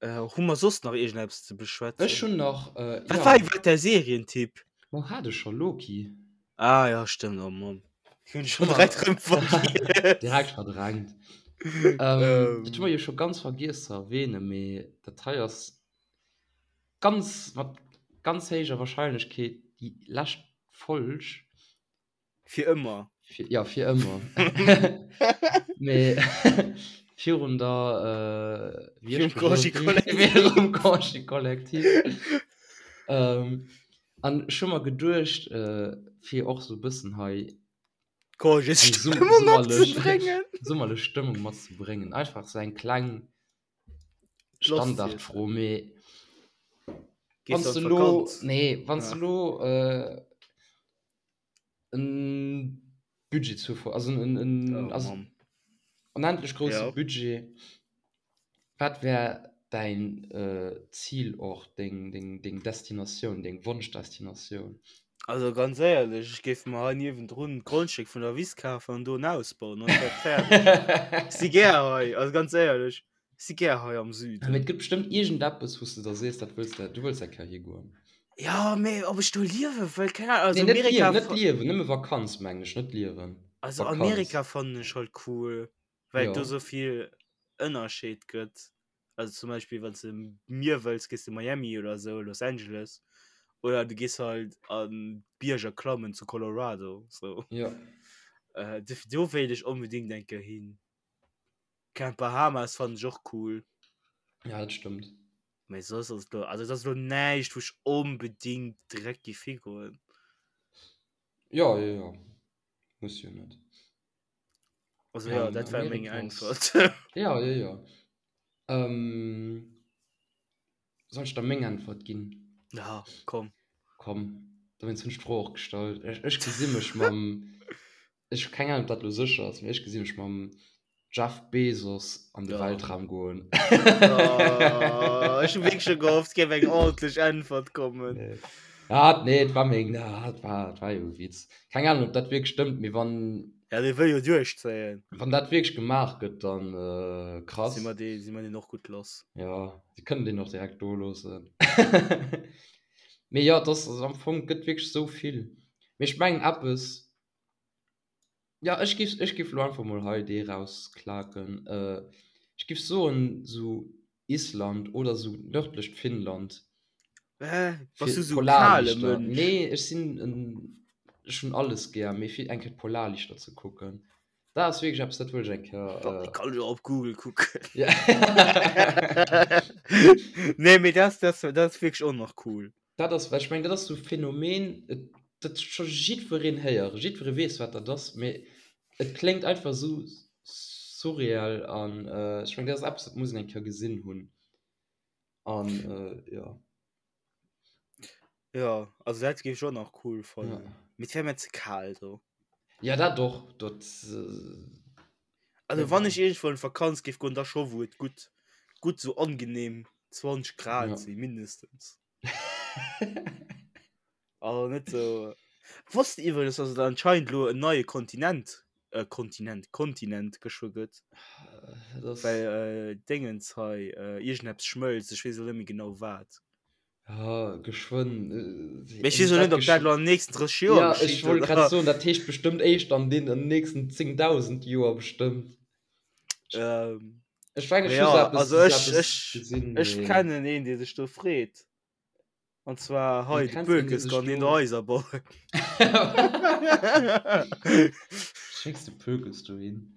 Äh, hu mer soss nach iergendeppes ze beschwätzen? Ech hunn nach, äh, Wat ja. war iwwerhaapt däi Serientipp? Ma hat ech scho, Loki. Ah ja, stëmmt, oh Mann. Hunn ech schon direkt rëm vergiess. Direkt verdrängt. Ähm, dat hu mer jo scho ganz vergiess ze erwähnen, mee dat hei ass ganz, mat ganz héijer Wahrscheinlechkeet déi lescht Folg. Fir ëmmer. Fir, ja, fir ëmmer. Mee virun der, äh, wéi Virum ech gesot Congé collectif. Virum Congé collectif. Ähm, an ech hu mer geduecht, äh, fir och sou e bëssen hei eng Congésstëmmung summerlech, matzebréngen. summerlech Stëmmung matzebréngen. Einfach sou eng kleng Lost Standardfro, mee. Wann Gees du an lo, d'Vakanz? nee, wann Ja. du lo äh, en Budget zur Ver also en, en, Oh also Mann. onendlech grousse Ja. Budget, wat wär däin äh, Zilort, deng, deng, deng Destinatioun, deng Wonschdestinatioun? Also ganz éierlech, ech géif mer hei niewendrun d'Grondstéck vun der Wiss kafen an do en Haus bauen, dann ass dat fäerdeg. Ech si gär hei, also ganz éierlech, ech si gär hei am Ja, mee Süden. et gëtt bestëmmt iergendeppes, wou s de da sees, dat wëlls de, du wëlls eng Kéier higoen. Ja, mee ob ech do liewe wëll, keng Ahnung. Nee, Also net Amerika, liewen, net liewen, nëmme Vakanz mengen ech, net liewen, also Vakanz. Amerika fannen ech halt cool, well et do Jo. sou vill Ënnerscheed gëtt. Also zum Beispill wann s de Mier wëlls, gees de Miami oder sou, Los Angeles. Oder du gees halt an d'Bierger klammen zu Colorado, sou. Jo. Äh, dofir do wéilt ech onbedéngt eng Kéier hin. Keng Bahamas fannen ech och cool. Ja, dat stëmmt. Mee soss ass et lo, also et ass lo näischt wou ech onbedéngt direkt géif higoen. Jo, jo, jo. Muss jo net. Also ja, dat war meng Äntwert. Ja, jo, jo. Ähm, soll ech da meng Äntwert ginn? Ja, komm. Komm, dowéinst hunn ech d'Fro och gestallt. Ech, ech gesi mech mam, ech hu keng Ahnung, ob dat elo sécher ass, mee ech gesi mech mam Jeff Bezos an de Ja. Weltraum goen. Oh, ech hu wierklech scho gehofft, et géif eng ordentlech Äntwert kommen. Nee. Ah, nee, et war meng, ah, et war, et war jo e Witz. Keng Ahnung, ob dat wierklech stëmmt, mee wann, Ja, dee wëll jo duerchzéien. wann dat wierklech gemaach gëtt, dann äh, krass. Si mer dee, si mer deen och gutt lass. Ja, si kënnen deen och direkt do loossen. Mee jo, et ass, also am Fong, et gëtt wierklech esou vill. Mee ech mengen eppes, Ja ech giff ech giff lo einfach mol hei dee rausklaken. Ech giff soen sou Island oder sou nördlecht Finnland. Hä? Bass Fir du sou kale d'Polarlichter. Mënsch? Nee ech sinn en ech hunn alles gär, mee fir eng Kéier d'Polarlichter ze kucken, dat ass wierklech eppes dat wëll ech eng Kéier. Kéier. Kann ech och op Google kucken. Ja. Nee mee dat dat dat ass wierklech och nach cool. Dat ass, well ech mengen, dat ass esou e Phänomen, et, dat huet scho jiddwereen héieren, jiddweree weess, wat dat ass, mee et kléngt einfach esou surreal an ech mengen, dat ass eppes, dat muss een eng Kéier gesinn hunn an jo. Jo, also dat géif ech och nach cool fannen, mee et wär mir ze kal do. Jo, dat och, dat. Also wann ech iergendwou an d'Vakanz géif goen, da scho wou et gutt, gutt esou angenehm 20 Grad si mindestens. Also net so. Wosst iwwregens, dass et anscheinend lo en neie Kontinent, äh, Kontinent, Kontinent geschwë gëtt. Das Well äh, Dingens hei, äh, iergendeppes schmëlzt, ech weess elo net méi genau wat. Ja, geschwënn. Äh, Mee ech weess och net, ob dat lo an den nächsten 30 Joer Ja, ech geschitt, wollt oder? grad soen, dat heescht bestëmmt éischt an den an den nächsten 10.000 Joer bestëmmt. Ähm, Ech mengen, ech ja, hu sou eppes, also sou ech, eppes ech, gesinn, ech mee kennen een, dee sech do freet. An zwar Du hei, de kenns een, dee Pökes sech kann een do. Haiser bauen. Schécks de Pökes dohin.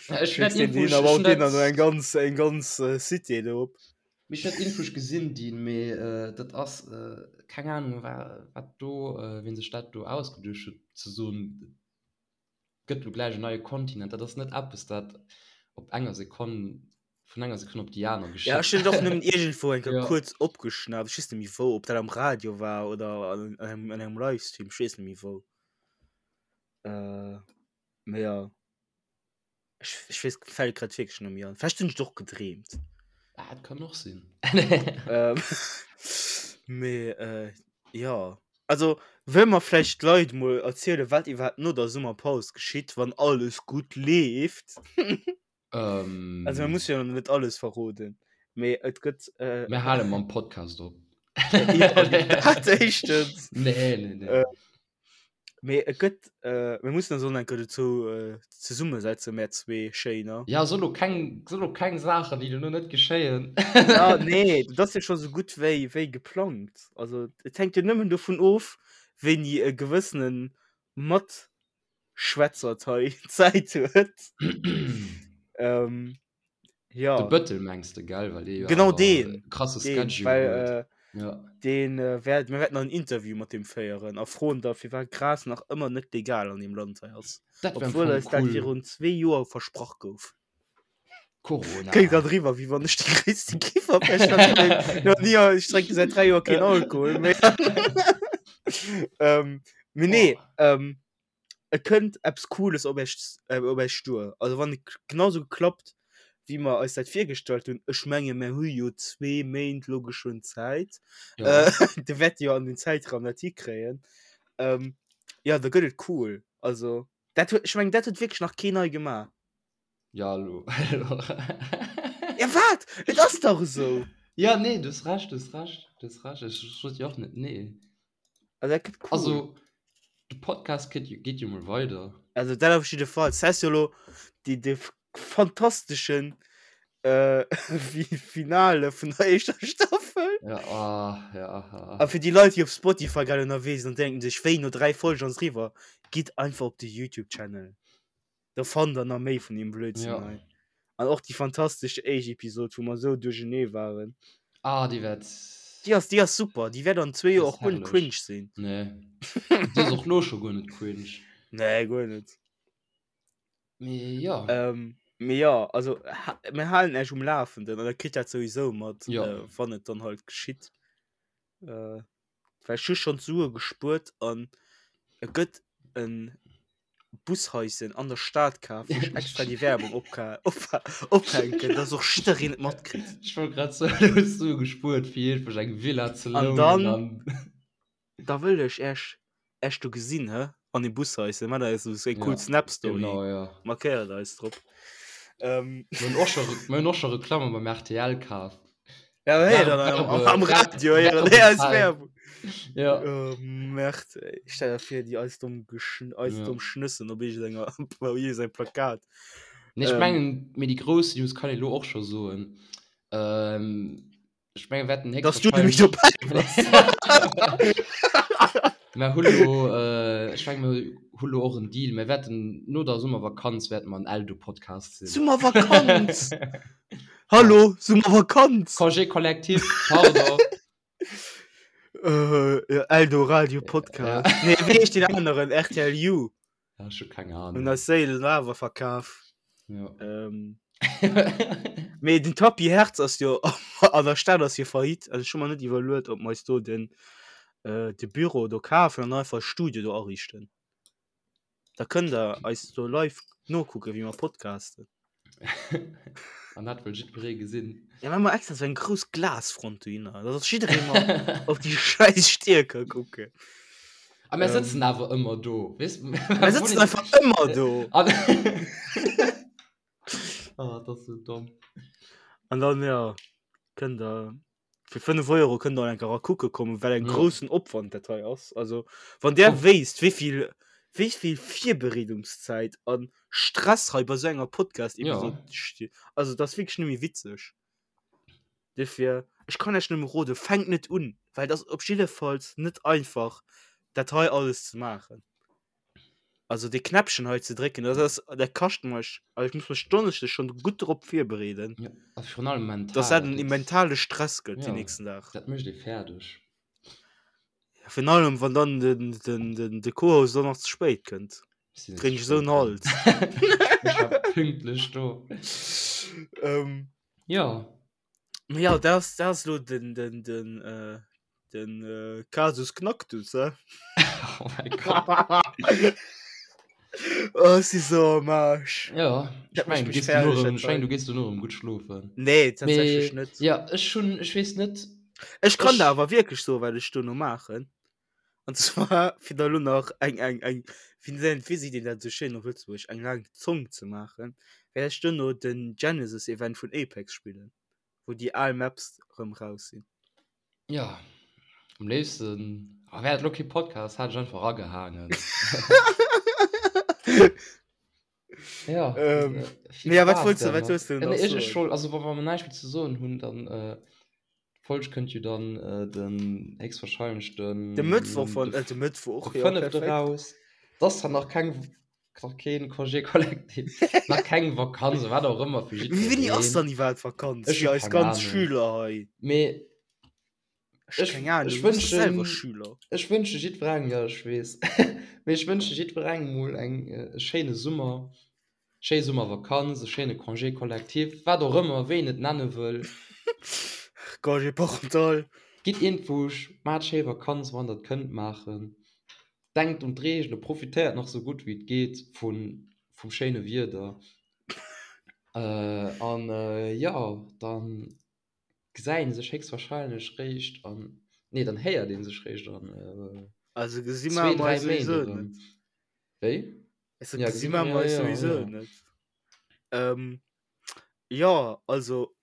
Ja, ech hunn Schécks dat deen Info, hin ech a ech baut hunn deen dat. dann eng ganz, eng ganz äh, Cité do op. Mee ech hunn dat Info gesinn, dien, mee äh, dat ass äh, keng Ahnung, wa wat do, äh, wien sech dat do ausgeduecht huet, ze soen, gëtt lo gläich en neie Kontinent. Dat ass net eppes, dat op enger Sekonn, vun enger Sekonn op déi aner Ja, ech geschitt. hunn et och nëmmen iergendwou eng Kéier Ja. kuerz opgeschnappt. Ech weess net méi wou, ob dat am Radio war oder an engem, an engem Livestream, ech weess net méi wou. Äh, mee ja. Ech, ech weess, fält grad wierklech net méi an. Vläicht hunn ech et och gedreemt. Ah, dat kann och sinn. Ähm, mee äh, ja. Also, wëlle mer vläicht d'Leit mol erzielen, wat iwwerhaapt no der Summerpaus geschitt, wann alles gutt leeft? Ähm, Also, mir musse jo nach net alles verroden, mee et gëtt. Äh, Mir hale mam Podcast op. ja, dat éischtens. Nee, nee, nee. Äh, Mee et gëtt, äh, mir mussen eis och nach eng Kéier dozou äh, zesummesetzen, mär zwee Schéiner. Ja, so lo keng, so lo keng Saachen, déi duerno net geschéien. Ja, nee, dat ass jo scho sou gutt wéi, wéi geplangt. Also, et hänkt jo nëmmen dovun of, wéini e gewëssene Matschwätzert hei Zäit huet. Ähm, ja. De Bëttel mengs de, gell? Well dee jo Genau awer deen, e krasse deen, Schedule well huet. äh, Ja. deen äh, wäert, mir wäerten en Interview mat deem féieren a froen da, firwat Gras nach ëmmer net legal an deem Land hei ass. Dat wär am Obwuel Fong eis dat cool. virun zwee Joer versprach gouf. Corona. Kléngt grad eriwwer, wéi wann ech de gréisste Kiffer wär. Ech hat nach ni, ech drénke säit 3 Joer keen Alkohol méi. ähm, mee nee, ähm, et kënnt eppes Cooles op iech, äh, op iech duer. Also wann et genauso klappt, wéi mer eis dat virgestallt hunn, ech menge mer hu jo zwee Méint lo geschwënn Zäit, Ja. äh, de wäerte jo an den Zäitraum dat hikréien. Ähm, ja, da gëtt et cool. Also dat huet, ech mengen, dat huet wierklech nach keen hei gemaach. Ja, lo. Ja, wat? Et ass dach esou. Ja, nee, du hues Recht, du hues Recht, du hues Recht. Ech sot jo och net nee. Also dat gëtt cool. Also, de Podcast geet, geet jo mol weider. Also dat op jidde Fall. Das heißt jo lo déi de fantasteschen äh, Finale vun der éischter Staffel. Ja, ah, ja, ah. A fir déi Leit, déi op Spotify grad ënnerwee sinn an denken sech, wéi no 3 Folgen ass eriwwer, gitt einfach op de YouTube-Channel. Da fannt der nach méi vun deem Blödsinn Ja. hei. An och déi fantastesch éischt Episod, wou mer esou duerchenee waren. Ah, déi wäert. Déi ass, déi ass super. Déi wäert an zwee Déi Joer ass och guer net herrlech. cringe sinn. Nee. Déi ass och lo scho guer net cringe. Nee, guer net. Mee ja. Ähm, mee ja, also ha mir halen Iech um Lafenden an der kritt dat souwisou mat, Ja. äh, wann et dann halt geschitt. Äh, well ech hu schonn d'Sue gespuert an et gëtt en Bushaischen an der Stad kaf, wou ech extra déi Werbung opka op ophänken, dass och jiddereen et matkritt. Ech wollt grad soen, du hues Sue gespuert fir iergendwech eng Villa ze An lounen dann an. da wëll ech Äech Äech do gesinn, hä, an dem Bushaischen. Maacht eis esou eng cool Ja, Snap-Story, genau, ja. markéiert eis drop. Ähm. Mir hunn och scho mir hunn och scho Reklamme beim rtl kaf. Ja, hey, dann am, am Radio, ja, nee, als Werbung. Ja. Oh, Merde, ey. Stell dir vor, die eis dumm, geschn eis Ja. dumm Schnëssen op irgendenger, op irgendeinem Plakat. Nee, ech Ähm. mengen, mee déi grouss News kann ee lo och scho soen. Ähm, ech mengen, wir wäerten Dass du nämlich héchstwahrscheinlech. dobäi bass. Mer hu lo, äh, ech mengen, mer hu lo och en Deal. Mer wäerten no der Summervakanz wäerte mer en Eldo-Podcast sinn. Summervakanz! Hallo, Summervakanz! Congé collectif, pardon. Äh, ja, Eldoradio Podcast. Ja. Nee, wéi heescht deen aneren? RTL You. Ja, ech hu keng Hun Ahnung. eis Séilen awer verkaf. Ja. Ähm, mee den Tapis Hertz ass jo an der Stad ass jo faillite. Also ech hu mer net iwwerluet, ob mer eis do den, äh, de Büro do kafen an einfach e Studio do ariichten. Da kënnt der eis do live nokucken, wéi mer podcasten. An dat wëll jiddweree gesinn. Ja, maache mer extra sou eng grouss Glasfront dohinner, dass och jidderee mol op déi schäiss Stier ka kucken. A mir sëtzen awer ëmmer do, weess? Mir sëtzen einfach ëmmer do. An Oh, dat ass sou domm. An dann, ja, kënnt der Fir 5 Euro kënnt der enker kucke kommen, well eng Ja. groussen Opwand dat hei ass. Also wann der Oh. wéisst, wéivill wéivill Virbereedungszäit an Stress hei bei sou enger Podcast-Episod Ja. steet. Also dat ass wierklech net méi witzeg. Dofir, ech kann iech nëmme roden, fänkt net un, well et ass op jiddefalls net einfach dat hei alles ze maachen. Also dee Knäppchen hei ze drécken, dat ass, dat kascht mech, also ech muss mech Donneschdes schonn gutt drop virbereeden, Ja, a virun allem mental. dass dat dat en gëtt- mentale Stress gëtt Ja. den nächsten Dag. Dat mécht ee fäerdeg. Ja, virun allem wann dann den, den, den, de Co-Host dann nach ze spéit kënnt. Ech sinn net Kréien ze ech esou spéit en dran. Hals. Ech war pünktlech do. Ähm, Ja. Ma ja, dat ass, dat ass lo den, den, den, äh, den äh, Kasus Knacktus, hä? Oh mein Gott. Oh, ech si so am Arsch. Ja, Dat ech mengen, mécht du mech gees fäerdeg, duerno dat erëm, ech mengen, hei. du gees duerno erëm gutt schlofen. Nee, tatsächlech Mee, net. ja, ech hunn, ech weess net, Ech kann ech, der awer wierklech soen, wat ech duerno maachen. An zwar, fir da lo nach eng, eng, eng, wéi nennt, wéi seet een dat esou schéin op Lëtzebuergesch, eng laang Zong ze maachen, wäert ech duerno den Genesis-Event vun Apex spillen. wou déi al Maps rëm raus sinn. Ja, am léifsten, ah, wär et lo kee Podcast, hätt ech einfach agehaangen. Ja, Ähm, äh, vill mee ja, wat Spaass wollts du, wat dermat. wollts du Äh, nach nee, ech, ech soen? wollt, also wa wa mer näischt méi ze soen hunn, dann äh, d'Folg kënnt jo dann äh, den héchstwahrscheinlech De den Mëttwoch von, de, äh, de Mëttwoch, de ja, fënnefte perfekt. raus. T'ass zwar nach keng Nach keen Congé collectif, nach keng Vakanz, wat och ëmmer fir Mee wéini ass jiddwereen. dann iwwerhaapt Vakanz Ech fir hu eis keng ganz Ahnung. Schüler hei? Mee Ech hu ech, keng Ahnung, ech du bass doch selwer wënschen, Schüler. ech wënsche jiddwerengem, jo ech weess, mee ech wënsche jiddwerengem mol eng, e schéine Summer. Schéi Summervakanz, e schéine Congé collectif, wat och ëmmer, wéi een et nenne wëll. Congé parental. Gitt iergendwousch, maacht schéi Vakanz, wann der et kënnt maachen. Denkt un d'Reegele, profitéiert nach sou gutt wéi et geet vun, vum schéine Wieder. An jo, dann gesäit een sech héchstwahrscheinlech réischt an, nee, dann héiert een sech réischt an Also gesi mer zwee, dräi eis Méint souwisou erëm. net. Wéi? Also Ja, gesi gesi mer ja, eis ja, souwisou ja. net. Ähm, ja, also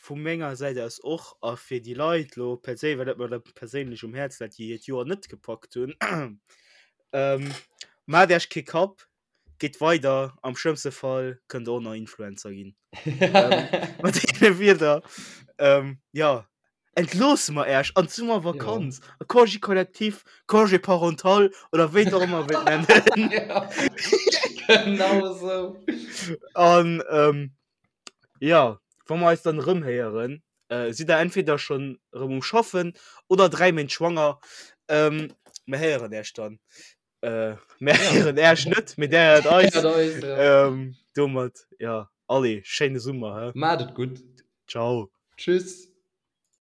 vu menger Säit aus och a fir déi Leit lo perséinlech, well dat mer da perséinlech um Häerz läit, déi hiert Joer net gepackt hunn, ähm, maacht Iech kee Kapp, gitt weider, am schlëmmste Fall kënnt der och nach Influencer ginn. Ähm, mat deene Wierder, ähm, ja, entloosse mer Äech an d'Summervakanz, Ja. a Congé collectif, Congé parental oder wéi der och ëmmer wëllt nennen. Ja, genau esou. An ähm, ja, wa mer eis dann erëm héieren, äh, sidd der entweder schonn erëm um Schaffen oder 3 Méint schwanger. Ähm, mer héieren Äech dann. Äh, mer Ja. héieren Äech net, mee där héiert eis. Héiert eis, ja. Ähm, domat, ja, allez, schéine Summer, hä? Maacht et gutt. Ciao. Tschüss.